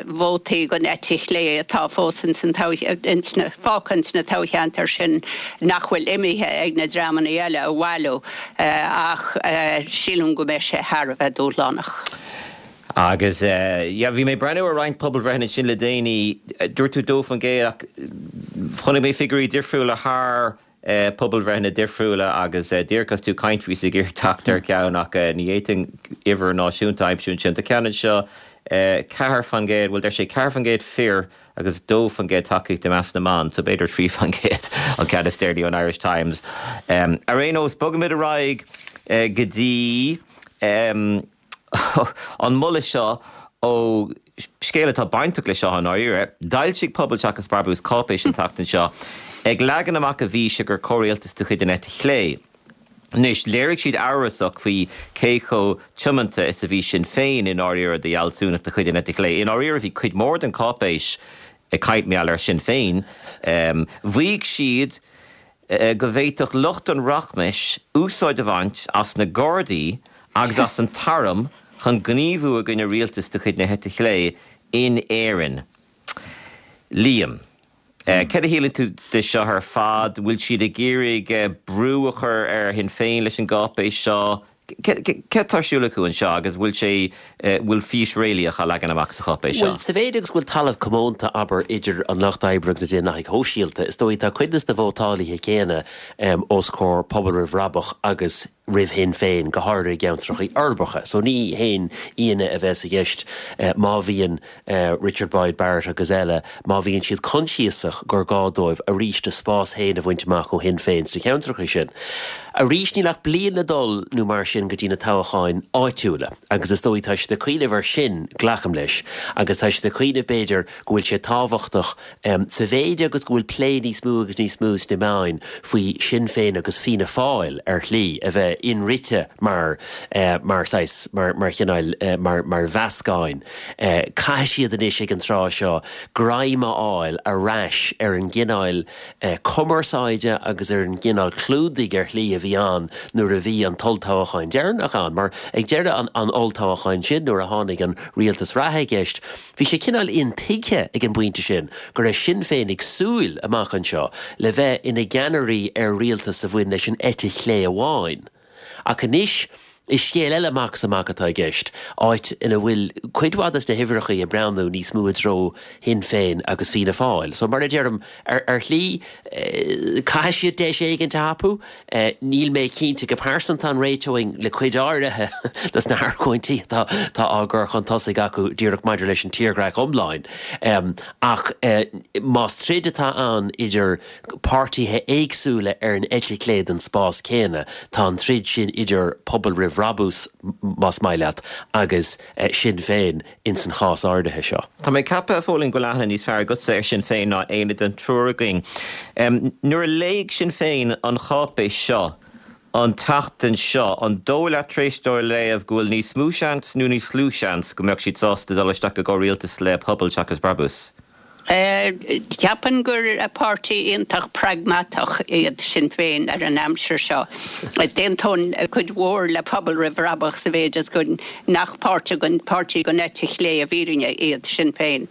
vótaí den eite chlé atá fós ins an ins na fágtha ins na toghcheantair sin nach bhfuil imithe ag na dreamanna eile a bhailiú ach sílim go mbeidh sé thar a bheith dúshlánach. Agus yeah bhí mé ag breathnú ar roinnt pobalbhreitheanna ansin le déanaí, dúirt tú 2% ach chonaic mé figiúirí difriúla thar pobalbhreitheanna difriúla agus díreach agus tú ag caint bhíos ag iarraidh teacht ar cheann ach ní fhéadfainn uimhir náisiúnta a aimsiú ansin. Tá ceann anseo, 4%, bhuel deir sé 4% fir agus 2% tacaíocht i measc na mban, so b'fhéidir 3% an ceann is deireanaí ón Irish Times. Ar aon nós, bogfaimid ar aghaidh go dtí. an moladh seo ó scéal atá bainteach le seo i ndáiríre. D'fhoilsigh Pobal Seachas Brabús cáipéis an tseachtain seo ag leagan amach a bhfíse gur comhrialtas de chuid an eite chlé. Anois, léirigh siad amhrasach faoi cé chomh tiomanta is a bhí Sinn Féin i ndáiríre do fhealsúnacht de chuid an eite chlé. I ndáiríre, bhí cuid mhór den cháipéis ag caint mar gheall ar Shinn Féin. Mhaígh siad go bhféadfadh lucht an rachmais úsáid a bhaint as na Gardaí agus as an t-arm chun gníomhú i gcoinne rialtas de chuid na heite chlé in Éirinn. Liam, céard a shíleann tú de seo ar fad? Bhfuil siad ag iarraidh brú a chur ar Shinn Féin leis an gcáipéis seo? Céard atá ar siúl acu anseo agus bhfuil sé, bhfuil fís réalaíoch á leagan amach sa cháipéis seo? Bhuel, sa mhéid agus go bhfuil talamh comónta, abair, idir an Lucht Oibre agus na Daonlathaigh Shóisialta, is dóigh, tá cuid de na vótálaithe céanna os comhair Pobal Roimh Bhrabach agus roimh Shinn Féin, go háirithe i gceantracha uirbeacha. So ní haon ionadh a bheas i gceist má bhíonn Richard Boyd Barrett agus eile, má bhíonn siad coinsiasach gur gá dóibh arís a spás féin a bhaint amach ó Shinn Féin sna ceantracha sin. Arís, níl ach bliain le dul nó mar sin go dtí na toghcháin áitiúla agus is dóigh tá siad ag cuimhneamh air sin, glacaim leis, agus tá siad ag cuimhneamh b'fhéidir go bhfuil sé tábhachtach sa mhéid agus go bhfuil plé níos mó agus níos mó sna meáin faoi Shinn Féin agus Fianna Fáil ar shlí a bheith. bheith inrite mar, mar saghas, mar, mar chineál, mar, mar mheascáin. Caithfidh siad anois ag an tráth seo greim a fháil ar ais ar an gcineál cumarsáide agus ar an gcineál clúdaigh ar shlí a bhí ann nuair a bhí an t-olltoghchán deireanach ann. Mar ag deireadh an olltoghcháin sin nuair a tháinig an rialtas reatha i gceist, bhí sé cineál intuigthe ag an bpointe sin go raibh Sinn Féin ag súil, amach anseo, le bheith ina gceannairí ar rialtas a bhain leis an eite chlé amháin. Ach anois, is scéal eile amach is amach atá i gceist, áit ina bhfuil cuid mhaith des na huimhreachaí ag breathnú níos mó i dtreo Shinn Féin agus Fianna Fáil. So, mar a deirim, ar shlí, caithfidh siad deis éigint a thapú. Níl mé cinnte go pearsanta an réiteoinn le cuid áirithe des na hargóintí atá á gcur chun tosaigh acu díreach maidir leis an tírdhreach iomlán. Ach más troid atá ann idir páirtithe éagsúla ar an eite chlé den spás céanna. Tá an troid sin idir Pobal Roimh Bhrabús, más maith leat, agus Sinn Féin ins an chás áirithe seo. Tá mé ag ceapadh, a Phóilín, go bhfuil aithne níos fearr agatsa ar Sinn Féin ná éinne den triúr againn. Nuair a léigh Sinn Féin an cháipéis seo an tseachtain seo, an dóigh leat tar éis dóibh í a léamh go bhfuil níos mó seans nó níos lú seans go mbeadh siad sásta dul isteach i gcomhrialtas le Pobal seachas Brabús? Ceapaim gur páirtí iontach pragmatach iad Sinn Féin ar an aimsir seo. D'aontóinn cuid mhór le Pobal Roimh Bhrabach sa mhéid is go nach páirtí den eite chlé i bhfírinne iad Sinn Féin.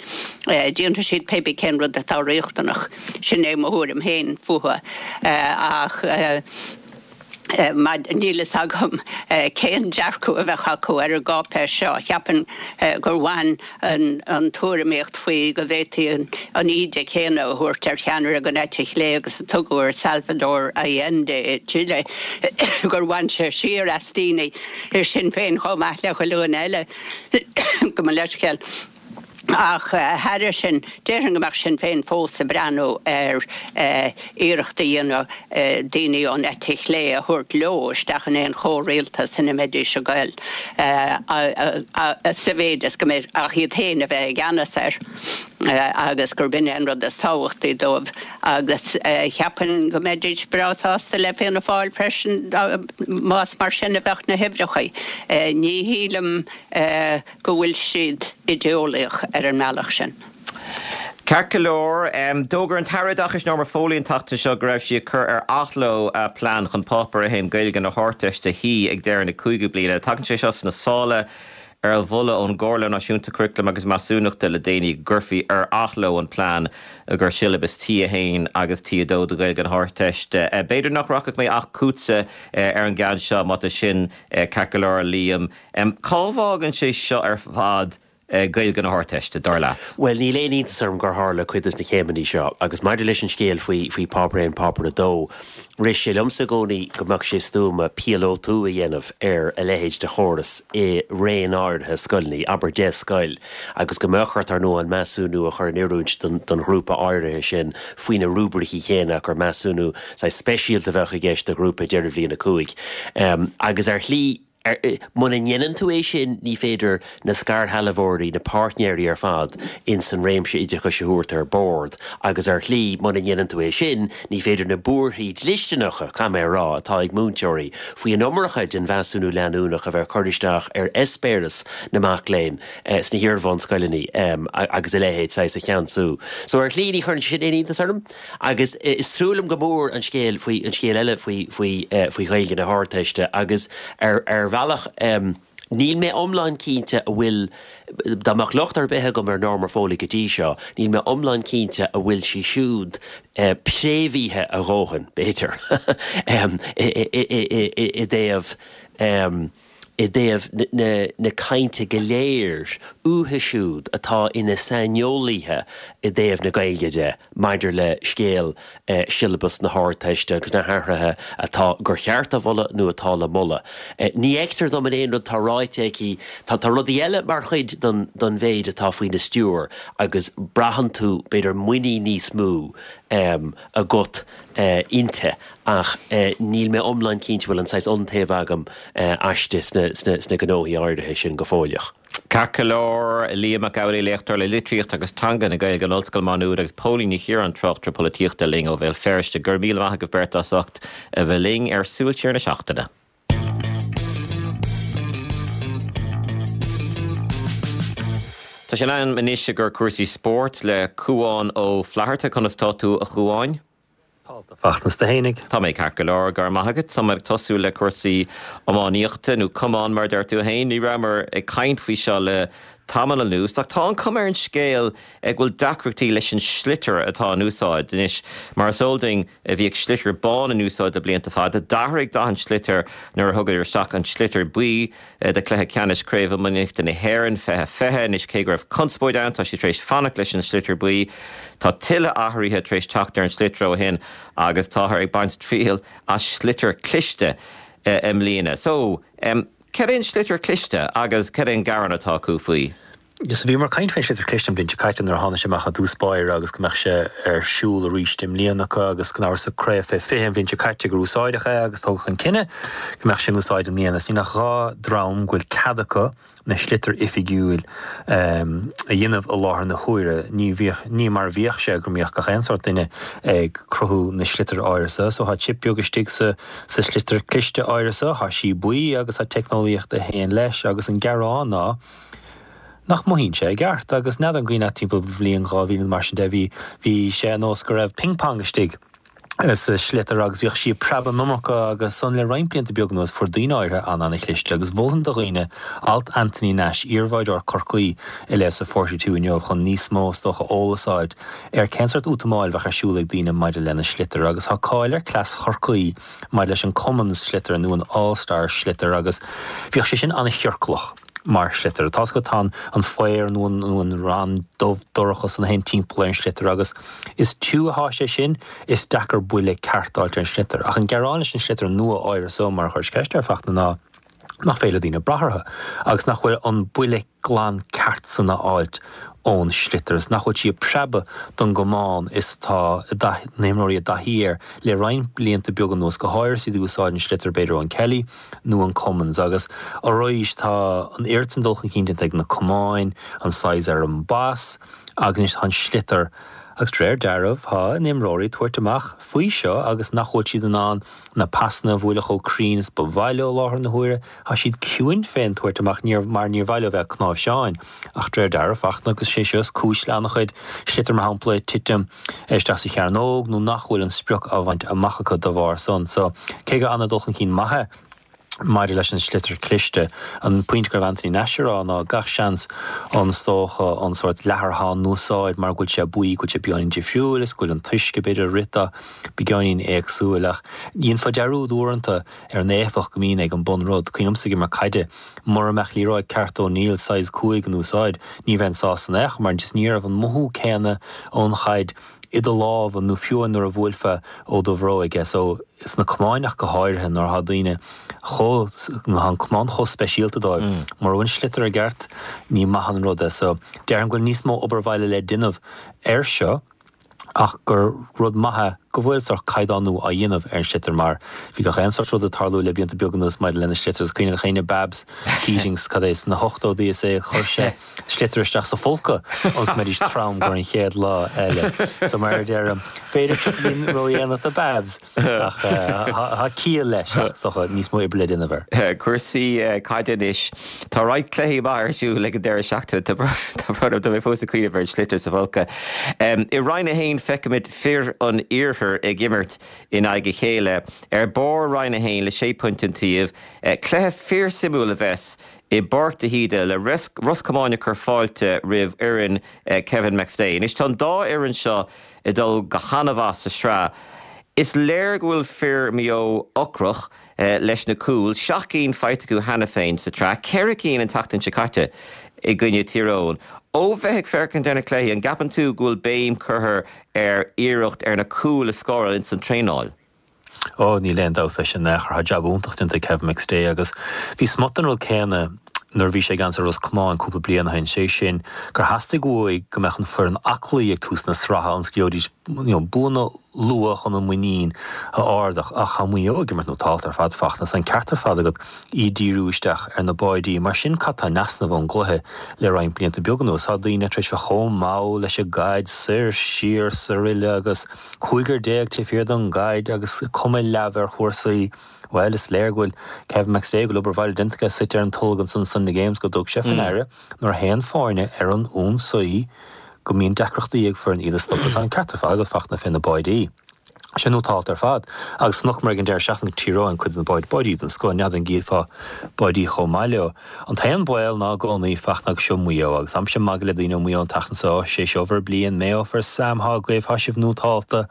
Déanfaidh siad pé bith cén rud atá riachtanach. Sin é mo thuairim féin fúthu. Ach. Níl fhios agam cén dearcadh a bheadh acu ar an gcáipéis seo. Cheapfainn gur bhain an tuairimíocht faoi go bhféadfaí an íde chéanna a thabhairt ar cheannaire den eite chlé agus a tugadh ar Salvador Allende i Chile, gur bhain sé siar as daoine i Sinn Féin chomh maith le chuile dhuine eile. Gabh mo leithscéal. Ach thairis sin, déarfainn go mbeadh Sinn Féin fós ag breathnú ar iarracht a dhéanamh daoine ón eite chlé a thabhairt leo isteach in aon chomhrialtas ina mbeidís ag goil, sa mhéid is go mbeidh ach iad féin a bheith i gceannas air agus gurb in é an rud is tábhachtaí dóibh. Agus cheapfainn go mbeidís breá sásta le Fianna Fáil freisin más mar sin a bheadh na huimhreacha. Ní shílim. go bhfuil siad idéolaíoch ar an mbealach sin. Ceart go leor, d'fhógair an tAire Oideachais Norma Foley an tseachtain seo go raibh sí ag cur ar athló a plean chun Páipéar 1 Gaeilge na hArdteiste a shuí ag deireadh na cúigiú bliana. Tagann sé seo sna sála ar mholadh ón gComhairle Náisiúnta Curaclaim agus Measúnachta le déanaí go gcuirfí ar athló an plean i gcomhair siollabas T1 agus T2 do Ghaeilge na hArdteiste. B'fhéidir nach rachaidh mé ach chugatsa ar an gceann seo má tá sin ceart go leor, a Liam. Cá bhfágann sé seo ar fad Gaeilge na hArdteiste, dar leat? Bhuel, níl aon iontas orm gur tharla cuid de na céimeanna seo, agus maidir leis an scéal faoi faoi Páipéar 1, Páipéar 2, rith sé liomsa i gcónaí go mbeadh sé stuama píolótú a dhéanamh ar a leithéid de chóras i raon áirithe scoileanna, abair 10 scoil, agus go mbeadh ort, ar ndóigh, an measúnú a chur in oiriúint don don ghrúpa áirithe sin faoi na rúibricí céanna ach gur measúnú saghas speisialta a bheadh i gceist do ghrúpa deireadh bhliain 5. Agus ar shlí, Muna ndéanann tú é sin, ní féidir na scairshealbhóirí, na páirtnéirí ar fad ins an réimse oideachais a thabhairt ar bord agus ar shlí, muna ndéanann tú é sin, ní féidir na buarthaí dlisteanacha, caithfidh mé a rá, atá ag múinteoirí faoi an iomarca den mheasúnú leanúnach a bheith ag cur isteach ar eispéireas na mac léinn sna hiar-bhunscoileanna agus a leithéid, saghas, a cheansú. So ar shlí, ní chuireann sé sin aon iontas orm. Agus is trua liom go mór an scéal faoi, an scéal eile faoi, faoi, faoi Ghaeilge na hArdteiste agus ar, ar bhealach, níl mé iomlán cinnte a bhfuil, dá mbeadh locht ar bith agam ar Norma Foley go dtí seo, níl mé iomlán cinnte a bhfuil sí siúd préamhaithe a dhóthain, b'fhéidir, i dtaobh. i dtaobh na cainte go léir uathu siúd atá ina saineolaithe i dtaobh na Gaeilge de maidir le scéal siollabas na hArdteiste agus na hathruithe atá gur cheart a mholadh nó atá le moladh. Ní fheictear dom in aon rud atá ráite aici, tá rudaí eile mar chuid den mhéid atá faoina stiúir agus braitheann tú, b'fhéidir, muinín níos mó agat inti ach níl mé iomlán cinnte bhfuil an saghas iontaoibh agam aisti sna gnóthaí áirithe sin go fóilleach. Ceart go leor, Liam Mac Amhlaigh, léachtóir le Litríocht agus Teanga na Gaeilge in Ollscoil Mhá Nuad agus Póilín Ní Chiaráin, tráchtaire polaitíochta linn ó Bhéal Feirste. Go raibh míle maith agaibh beirt as ucht a bheith linn ar Súil Siar na Seachtaine. Tá sé in am anois i gcomhair cúrsaí spóirt le Cúán Ó Flatharta. Conas tá tú, a Chúáin? Tá a Fhachtna 's tú fhéinig. Tá mé ceart go leor, go raibh maith agat. Tá mé ag tosú le cúrsaí iománaíochta, nó camán mar a deir tú féin. Ní rabhamar ag caint faoi seo le tamall anuas, ach tá an chuma ar an scéal go bhfuil deacrachtaí leis an sliotar atá in úsáid anois. Mar is eol duinn, bhíodh sliotar bán in úsáid le blianta fada. D'athraigh dath an tsliotair nuair a thugadar isteach an sliotar buí. do chluiche ceannais Craobh Iománaíochta na hÉireann 2020. Anois cé go raibh conspóid ann, tá siad tar éis fanacht leis an sliotar buí. Tá tuilleadh athruithe tar éis teacht ar an sliotar ó shin agus táthar ag baint triail as sliotar cliste i mbliana. So, cad é an sliotar cliste agus cad é an gearán atá acu faoi? So bhíomar ag caint faoin sliotar cliste an bhliain seo caite nuair a tháinig sé amach i dtús báire agus go mbeadh sé ar siúl arís i mbliana acu agus gan amhras sa craobh fé 20 an bhliain seo caite gur úsáideadh é agus tógadh an cinneadh go mbeadh sé in úsáid i mbliana. Is níl ach 2 dream go bhfuil cead acu na sliotar oifigiúil a dhéanamh i láthair na huaire. Ní bhíodh, ní mar a bhíodh sé go mbíodh gach aon sórt duine ag cruthú na sliotar áirithe so. So tá chip beag istigh sa sa sliotar cliste áirithe so, tá sí buí agus tá teicneolaíocht a théann leis agus an gearán ná nach mothaíonn sé i gceart agus n'fheadar an cuimhin leat timpeall bhliain 2000 nó mar sin de bhí bhí sé ar nós go raibh ping pong istigh sa sliotar agus bhíodh sí ag preabadh an iomarca agus ansan le roinnt blianta beag anuas fuair daoine áirithe an-an-chliste agus mholfainn do dhaoine alt Anthony Nash, iarbháideoir Chorcaí a léamh sa Forty Two inniu chun níos mó is dócha eolas a fháilt ar cén sórt útamáil a bheadh ar siúl ag daoine maidir lena sliotar agus tá cáil ar cleas Chorcaí maidir leis an Cummins sliotar nó an All Star sliotar agus bhíodh sé sin an-chiorclach mar shliotar. Tá's agat tá an faobhar nó an nó an rann dubh dorcha san a théann timpeall ar an sliotar agus is tiubh atá sé sin is deacair buille ceart a fháilt ar an sliotar. Ach an gearán leis an sliotar nua áirithe so mar a chuiris ceist air Fachtna ná nach féidir le daoine brath orthu agus nach bhfuil an buille glan ceart san a fháilt ón sliotar is nach bhfuil sí ag preabadh don gcamán is atá na himreoirí i dtaithí air le roinnt blianta beaga anuas, go háirithe is iad ag úsáid an sliotar b'fhéidir ón Kelly nó an Cummins agus arís tá an oiread san dul chun cinn déanta ag na camáin, an saghas ar an bpas agus anois tá an sliotar agus de réir dealraimh tá na himreoirí ag tabhairt amach faoi seo agus nach bhfuil siad in ann na pasanna a bhualadh chomh cruinn is ba mhaith leo i láthair na huaire. Tá siad ciúin fén tabhairt amach níor mar níor mhaith leo bheith ag cnáimhseáin. Ach de réir dealraimh, Fachtna, agus sé seo is cúis le an-chuid sliotar mar shampla ag titim isteach sa chearnóg nó nach bhfuil an sprioc á bhaint amach acu dá bharr san. So, cé gur an-dul chun cinn maith é maidir leis an sliotar cliste, an pointe go raibh Anthony Nash a rá ná gach seans an is dócha an sórt leathar atá in úsáid mar go bhfuil sé buí, go bhfuil sé beagáinín difriúil is go bhfuil an t-uisce b'fhéidir ag rith dó beagáinín éagsúil ach dhéanfá dearúd uaireanta ar an éifeacht go mbíonn ag an bunrud. Cuimhin liomsa ag imirt caide, mura mbeadh liathróid ceart O'Neill size 5 in úsáid, ní bheinn sásta in aon chor mar just ní raibh an mothú céanna ón chaid i do lámha nó fiú nuair a bhuailfeá ó do bhróig é. So, sna camáin ach go háirithe nuair atá daoine chomh, nuair atá an camán chomh speisialta dóibh, mura bhfuil an sliotar i gceart, ní maith an rud é. So, déarfainn go bhfuil níos mó obair bhaile le déanamh air seo. ach gur rud maith é go bhfuil sórt caighdeánú á dhéanamh ar an sliotar mar bhí gach aon sórt rud ag tarlú le blianta beaga anuas maidir lena sliotar. Is cuimhin le gach éinne Babs Keating cad é sna hochtóidí is é a chuir sé sliotar isteach sa phóca ionas go mbeidís trom gur an chéad lá eile. So mar a deirim, b'fhéidir tríochaidín ródhéanach do Babs. Ach tá ciall leis, ach is dócha níos mó oibre le déanamh air. Cúrsaí caide anois. Tá roinnt cluichí maith ar siúl ag an deireadh seachtaine. Tá brón orm, tá mé fós ag cuimhneamh ar an sliotar sa phóca. I Roinn 1 feicimid fir an Iarthair ag imirt in aghaidh a chéile. Ar barr Roinn 1 le sé phointe an taobh. Cluiche fíorsuimiúil a bheas i bPáirc de hÍde le Ros Comáin ag cur fáilte roimh fhoireann Kevin McStay. Anois tá an dá fhoireann seo ag dul go han-mhaith sa sraith. Is léir go bhfuil fir Mhaigh Eo ocrach leis na cúil, 7 gcinn faighte acu cheana féin sa tsraith, 4 cinn an tseachtain seo caite i gcoinne Thír Eoghain. Ó bheith ag féachaint ar na cluichí, an gceapann tú go bhfuil béim curtha ar iarracht ar na cúil a scóráil ins an traenáil? Ó, níl aon dabht fé sin in aon chor. Tá jab iontach déanta ag Kevin McStay agus bhí smut den rud céanna nuair a bhí sé i gceannas ar Ros Comáin cúpla bliain ó shin, sé sin gur theastaigh uaidh go mbeadh an foireann aclaí ag tús na sraithe ionas go gheobhaidís you know buanna. luath chun an muinín a ardach ach tá Maigh Eo ag imirt nótálta ar fad Fachtna, tá an ceart ar fad agat iad díriú isteach ar na báidí. Mar sin cad tá in easnamh ón gcluiche le roinnt blianta beaga anuas? Tá daoine tar éis bheith chomh mall leis an gcaid, soir, siar, 'saraile agus cúigear taobh thiar den gcaid agus cuma leamh ar chúrsaí. Bhuel, is léir go bhfuil Kevin McStay, go bhfuil obair bhaile déanta aige, suite ar an tolg ansan sna Games, go dtug sé faoi ndeara nuair a théann foirne ar an ionsaí go mbíonn deacrachtaí ag foireann iad a stopadh. Tá an ceart ar fad agat, Fachtna, fé na báidí. Sé nótálta ar fad. Agus chonaiceamar ag an deireadh seachtaine Tír Eoghain cuid de na báidí, báidí den scoth, n'fheadar an gcífeá báidí chomh maith leo. An t-aon baol ná i gcónaí, Fachtna, agus seo Maigh Eo, agus táimse ag magadh le daoine ó Mhaigh Eo an tseachtain seo, sé seo bhur bliain, Mayo for Sam, thá agaibh, thá sibh nótálta.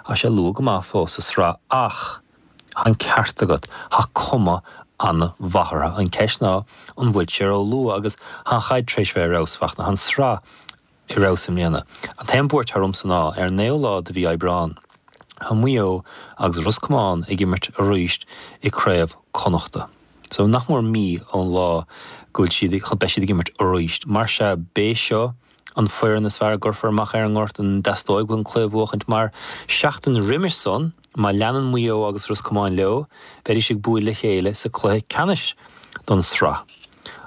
Tá sé luath go maith fós sa sraith ach tá an ceart agat, tá cuma an-mhaith orthu. An ceist ná an bhfuil sé ró-luath agus tá an chaid tar éis bheith ar fheabhas, Fachtna, tá an sraith ar fheabhas i mbliana. An t-aon buairt atá ormsa ná, ar an naoú lá de mhí Aibreán, tá Maigh Eo agus Ros Comáin ag imirt arís i Craobh Connachta. So, nach mór mí ón lá go bhfuil siad, beidh siad ag imirt arís. Mar sea, b'é seo an foireann is fearr a gcuirfear amach ar an ngort, an dteastóidh uathu an cluiche a bhuachaint mar, seachtain roimis san, má leanann Maigh Eo agus Ros Comáin leo, beidís ag bualadh le chéile sa cluiche ceannais don sraith.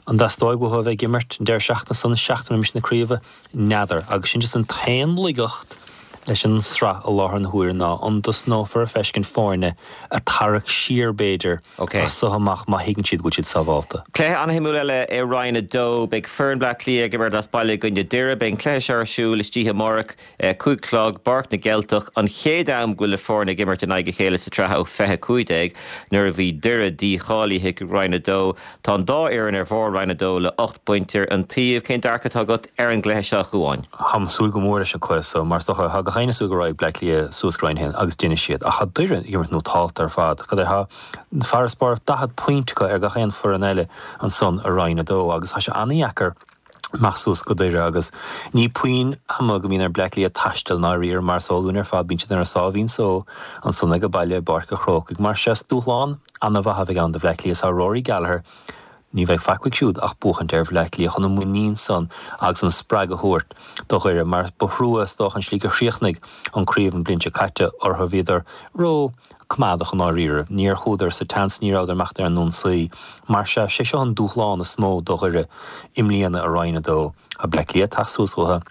An dteastóidh uathu a bheith ag imirt an deireadh seachtaine san, seachtain roimis na craoibhe? N'fheadar. Agus sin just an t-aon laigeacht leis an sraith i láthair na huaire ná an dtosnófar ag feiscint foirne ag tarrac siar b'fhéidir as so amach má thuigeann siad go bhfuil siad sábhálta. Cluiche an-shuimiúil eile i Roinn 2. Beidh foireann Bleá Cliath ag imirt as baile i gcoinne Doire. Beidh an cluiche seo ar siúl istoíche amárach. 5 a chlog, bPáirc na gCeilteach, an chéad am go bhfuil na foirne ag imirt in aghaidh a chéile sa tsraith ó 2015, nuair a bhí Doire dícháilithe chuig Roinn 2. Tá an dá fhoireann ar bharr Roinn 2 le 8 bpointe an taobh. Cén dearcadh atá agat ar an gcluiche seo, a Chuáin? Táim ag súil go mór leis an cluiche seo mar is dócha, tá gach éinne ag súil go raghaidh Bleá Cliath suas go Roinn 1 agus déanfaidh siad. Ach tá Doire ag imirt nótálta ar fad. Cad é, tá farasbarr 40 pointe acu ar gach aon foireann eile ansan i Roinn 2 agus tá sé an-dheacair amach suas go Doire agus ní puinn ama go mbíonn ar Bleá Cliath taisteal i ndáiríre mar is eol dúinn ar fad bíonn siad ar a sáimhín só ansan age baile i bPáirc a' Chrócaigh. Mar sea is dúshlán ana-mhaith a bheidh ann do Bhleá Cliath. Tá Rory Gallagher, ní bheidh faic uaidh siúd ach buachaint ar Bhleá Cliath chun an muinín san agus an spreagadh a thabhairt do Dhoire mar ba thrua is dócha an slí gur chríochnaigh an craobh an bhliain seo caite orthu. Bhíodar ró coimeádach i ndáiríre. Níor chuadar sa tseans, ní rabhadar amach ar an ionsaí. Mar sea, sé seo an dúshlán is mó do Dhoire i mbliana i Roinn 2. Tá Bleá Cliath ag teacht suas chucu,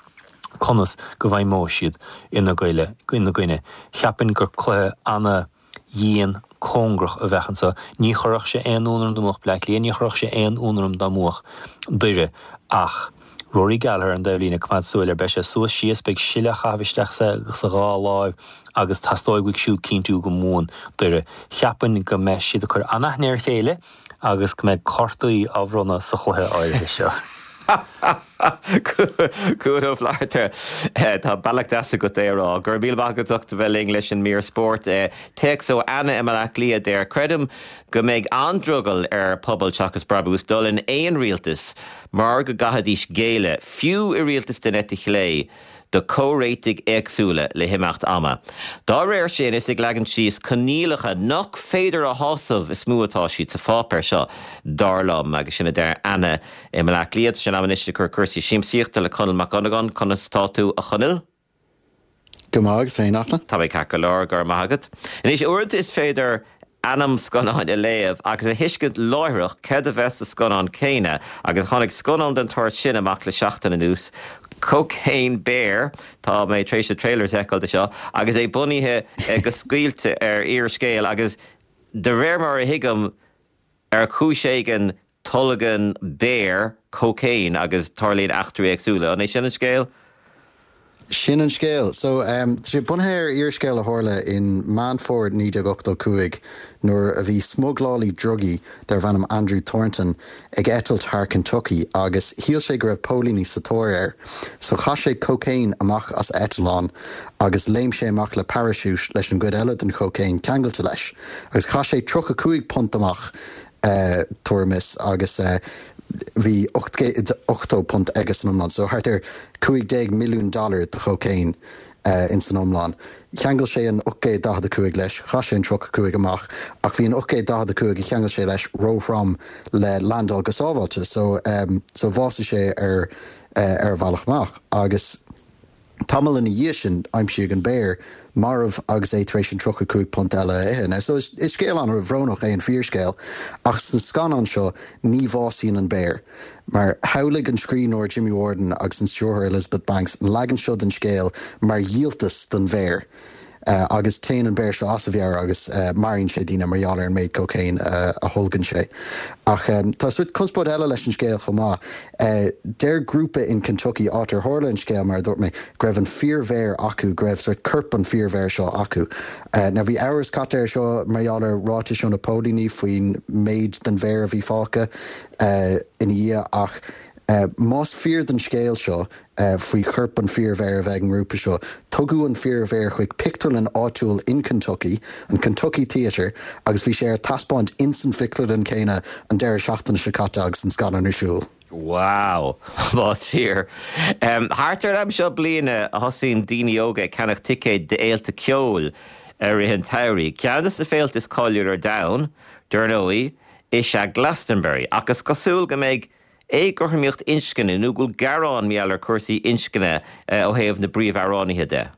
conas go bhfeidhmeoidh siad ina gcoinne. Cheapfainn gur cluiche ana-dhian cóngarach a bheadh anseo. Ní chuirfeadh sé aon ionadh orm dá mbuafadh Bleá Cliath, ní chuirfeadh sé aon ionadh orm dá mbuafadh Doire ach Rory Gallagher ar an dtaobhlíne, coimeád súil air, beidh sé suas síos, beidh sil á chaitheamh isteach sa dhá láimh agus teastóidh uaidh siúd cinntiú go mbuann Doire. Cheapfainn go mbeidh siad ag cur an-aithne ar a chéile agus go mbeidh cártaí á bhronnadh sa chluiche áirithe seo. Cuan Ó Flatharta, tá bealach deas agat é a rá. Go raibh míle maith agat as ucht a bheith linn leis an mír spóirt. Téacs ó Anna i mBaile Átha Cliath a deir, Creidim go mbeidh an-drogall ar Pobal Seachas Brabús dul in aon rialtas mar go gcaithfidís géilleadh, fiú i rialtas den eite chlé, do comhréitigh éagsúla le himeacht ama. Dá réir sin, is ag leagan síos coinníollacha nach féidir a shásamh is mó atá siad sa pháipéar seo, dar liom. Agus sin a deir Anna i mBaile Átha Cliath. Tá sé in am anois ag cur cúrsaí siamsaíochta le Conall Mac Dhonnagáin. Conas tá tú, a Chonaill? Go maith, agus tú féin, a Fhachtna? Tá mé ceart go leor, go raibh maith agat. Anois, uaireanta is féidir ainm scannáin a léamh agus a thuiscint láithreach céard a bheas sa scannán céanna agus tháinig scannán den tsórt sin amach le seachtain anuas, Cocaine Bear, tá mé tar éis na trailers a fheiceáil de seo, agus é bunaithe go scaoilte ar fhíorscéal agus de réir mar a thuigim, Ar chúis éigin, tolgann béar cocaine agus tarlaíonn eachtraí éagsúla. An é sin an scéal? Sin an scéal. So, tá sé bunaithe ar fhíorscéal a tharla in Meán Fómhair 1985 nuair a bhí smuglálaí drugaí darbh ainm Andrew Thornton ag eitilt thar Kentucky agus shíl sé go raibh póilíní sa tóir air. So chaith sé cocaine amach as a eitleán agus léim sé amach le parachute leis an gcuid eile den chocaine ceangailte leis. Agus chaith sé 35 punt amach, tuairim is, agus bhí 880 punt aige san iomlán, so thart ar 15 milliún dollar de chocaine ins an iomlán. Cheangail sé an 845 leis, chaith sé an 35 amach, ach bhí an 845 a cheangail sé leis róthrom le landáil go sábháilte, so so bhásaigh sé ar ar a bhealach amach. Agus. Tamall ina dhiaidh sin, aimsíodh an béar marbh agus é tar éis an £35 eile a ithe. Now, so is scéal an-bhrónach é an fíorscéal, ach sa scannán seo, ní bhásaíonn an béar. Mar shamhlaigh an scríbhneoir Jimmy Warden agus an stiúrthóir Elizabeth Banks an leagan seo den scéal mar dhíoltas don bhéar. Agus téann an béar seo as a mheabhair agus maraíonn sé daoine mar gheall ar an méid cócaon a tholgann sé. Ach tá sórt conspóid eile leis an scéal chomh maith. Deir grúpa in Kentucky, áit ar tharla an scéal, mar a dúirt mé, go raibh an fíorbhéar acu, go raibh sórt corp an fíorbhéir seo acu. Now bhí amhras caite air seo mar gheall ar ráitis ó na póilíní faoin méid den bhéar a bhí fágtha ina dhiaidh ach más fíor don scéal seo, faoi chorp an fíorbhéir a bheith ag an ngrúpa seo. Tugadh an fíorbhéar chuig pictiúrlann áitiúil in Kentucky, an Kentucky Theatre, agus bhí sé ar taispeáint ins an phictiúrlann céanna an deireadh seachtaine seo caite agus an scannán ar siúl. Wow! Más fíor. Thart ar an am seo bliana a thosaíonn daoine óga ag ceannach ticéid d'fhéilte ceoil i rith an tsamhraidh. Ceann de na féilte is cáiliúla ar domhan, dar ndóigh, is ea Glastonbury, ach is cosúil go mbeidh éagothromaíocht inscne nó go bhfuil gearán mar gheall ar cúrsaí inscne ó thaobh na bpríomhamhránaithe de.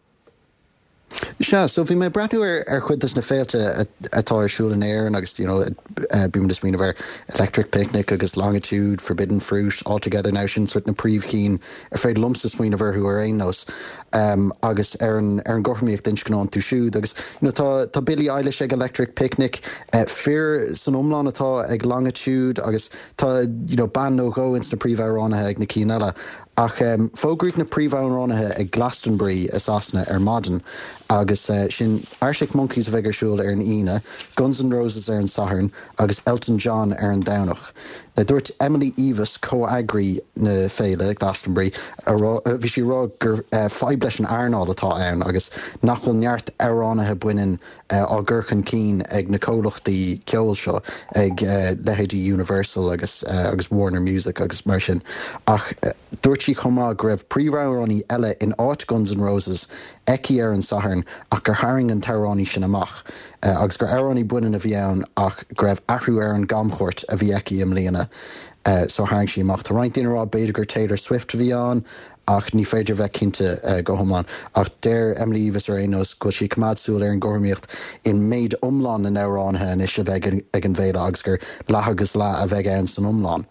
Sea, so bhí mé ag breathnú ar ar chuid des na féilte atá ar siúl in Éirinn agus you know bímid ag smaoineamh ar Electric Picnic agus Longitude, Forbidden Fruit, All Together Now, sin sort na príomhchinn ar féidir liomsa smaoineamh orthu ar aon nós agus ar an ar an gcothromaíocht inscne iontu siúd agus you know tá tá Billie Eilish ag Electric Picnic, fir san iomlán atá ag Longitude agus Tá you know bean nó dhó ins na príomhamhránaithe ag na cinn eile, ach fógraíodh na príomhamhránaithe ag Glastonbury i Sasana ar maidin agus sin Arctic Monkeys a bheidh ar siúl ar an Aoine, Guns N' Roses ar an Satharn agus Elton John ar an Domhnach. Now dúirt Emily Eavis, comheagraí na féile, Glastonbury, a rá, bhí sí ag rá gur fadhb leis an earnáil atá ann agus nach bhfuil neart amhránaithe baineann á gcur chun cinn ag na comhlachtaí ceoil seo, ag leithéidí Universal agus agus Warner Music agus mar sin. Ach dúirt sí chomh maith go raibh príomhamhránaí eile in áit Guns N' Roses aici ar an Satharn ach gur tharraing an t-amhránaí sin amach agus gur amhránaí baineann a bhí ann ach go raibh athrú ar an gcamchuairt a bhí aici i mbliana so tharraing sí amach. Tá roinnt daoine ag rá b'fhéidir gur Taylor Swift a bhí ann ach ní féidir a bheith cinnte go hiomlán. Ach deir Emily Eavis ar aon nós go bhfuil sí ag coimeád súil ar an gcothromaíocht i méid iomlán na n-amhránaithe anois a bheidh ag an bhféile agus gur leath agus leath a bheidh ann san iomlán.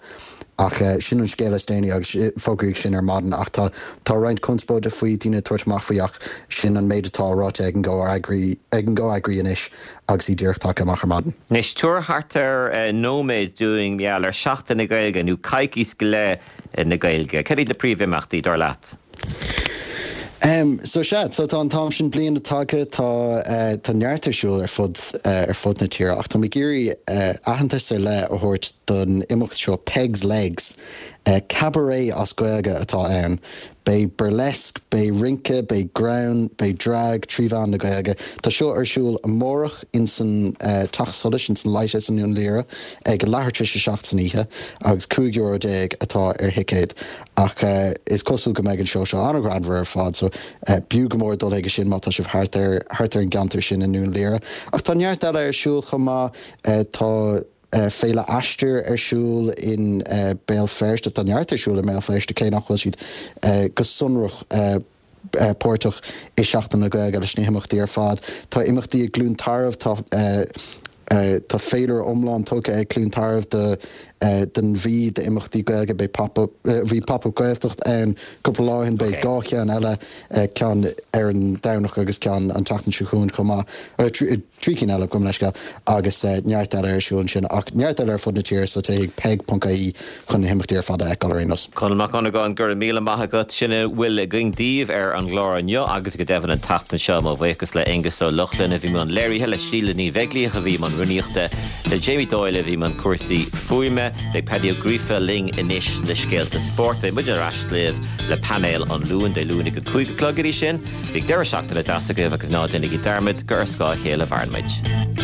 Ach sin an scéal is déanaí agus fógraíodh sin ar maidin ach tá tá roinnt conspóide faoi, daoine ag tabhairt amach faoi ach sin an méid atá ráite ag an gcomheagraí ag an gcomheagraí anois agus í díreach tagtha amach ar maidin. Anois, tabhair thart ar nóiméad dúinn mar gheall ar Seachtain na Gaeilge nó coicís go leith na Gaeilge. Cad iad na príomhimeachtaí, dar leat? So sea, so tá an t-am sin bliana tagtha, tá tá neart ar siúl ar fud ar fud na tíre ach tá mé ag iarraidh aitheantas ar leith a thabhairt don imeacht seo Pegs Legs. Cabaret as Gaeilge atá ann. Beidh burlesque, beidh rince, beidh greann, beidh drag trí mheán na Gaeilge. Tá seo ar siúl amárach ins an Teach Solais, ins an Lighthouse i nDún Laoghaire ag a leathuair tar éis a 7 san oíche agus €15 euro atá ar thicéad. Ach is cosúil go mbeidh an seó seo an-ghreannmhar ar fad so b'fhiú go mór dul chuige sin má tá sibh thart ar thart ar an gceantar sin i nDún Laoghaire. Ach tá neart eile ar siúl chomh maith. Tá. Féile Aistear ar siúl in Béal Feirste. Tá neart ar siúl i mBéal Feirste cé nach bhfuil siad go sonrach páirteach i Seachtain na Gaeilge leis na himeachtaí ar fad. Tá imeachtaí i gCluain Tarbh, tá tá féilire iomlán tugtha ag Cluain Tarbh do don mhí d'imeachtaí Gaeilge. Beidh pop up bhí Pop Up Gaeltacht ann cúpla lá ó shin, beidh 2 cheann eile, ceann ar an Domhnach agus ceann an tseachtain seo chugainn chomh maith. 3 cinn eile, gabh mo leithscéal, agus neart eile ar siúl ansin, ach neart eile ar fud na tíre, so téigh chuig peig.ie chun na himeachtaí ar fad a fheiceáil ar aon nós. Conall Mac Dhonnagáin, go raibh míle maith agat. Sin a bhfuil againn daoibh ar an gclár inniu agus go deimhin an tseachtain seo. Mo bhuíochas le Aengus Ó Lochlainn a bhí i mbun léirithe, le Síle Ní Bheaglaoich a bhí i mbun rúnaíochta, le Jamie Doyle a bhí i mbun cúrsaí fuaime. Beidh Paddy Ó Gríofa linn anois le scéalta spóirt. Beidh muid ar ais libh le painéal an Luain, Dé Luain ag a 5 a chlog. Go dtí sin, Bíodh deireadh seachtaine deas agaibh agus ná déanaigí dearmad gur ar scáth a chéile a mhaireann muid.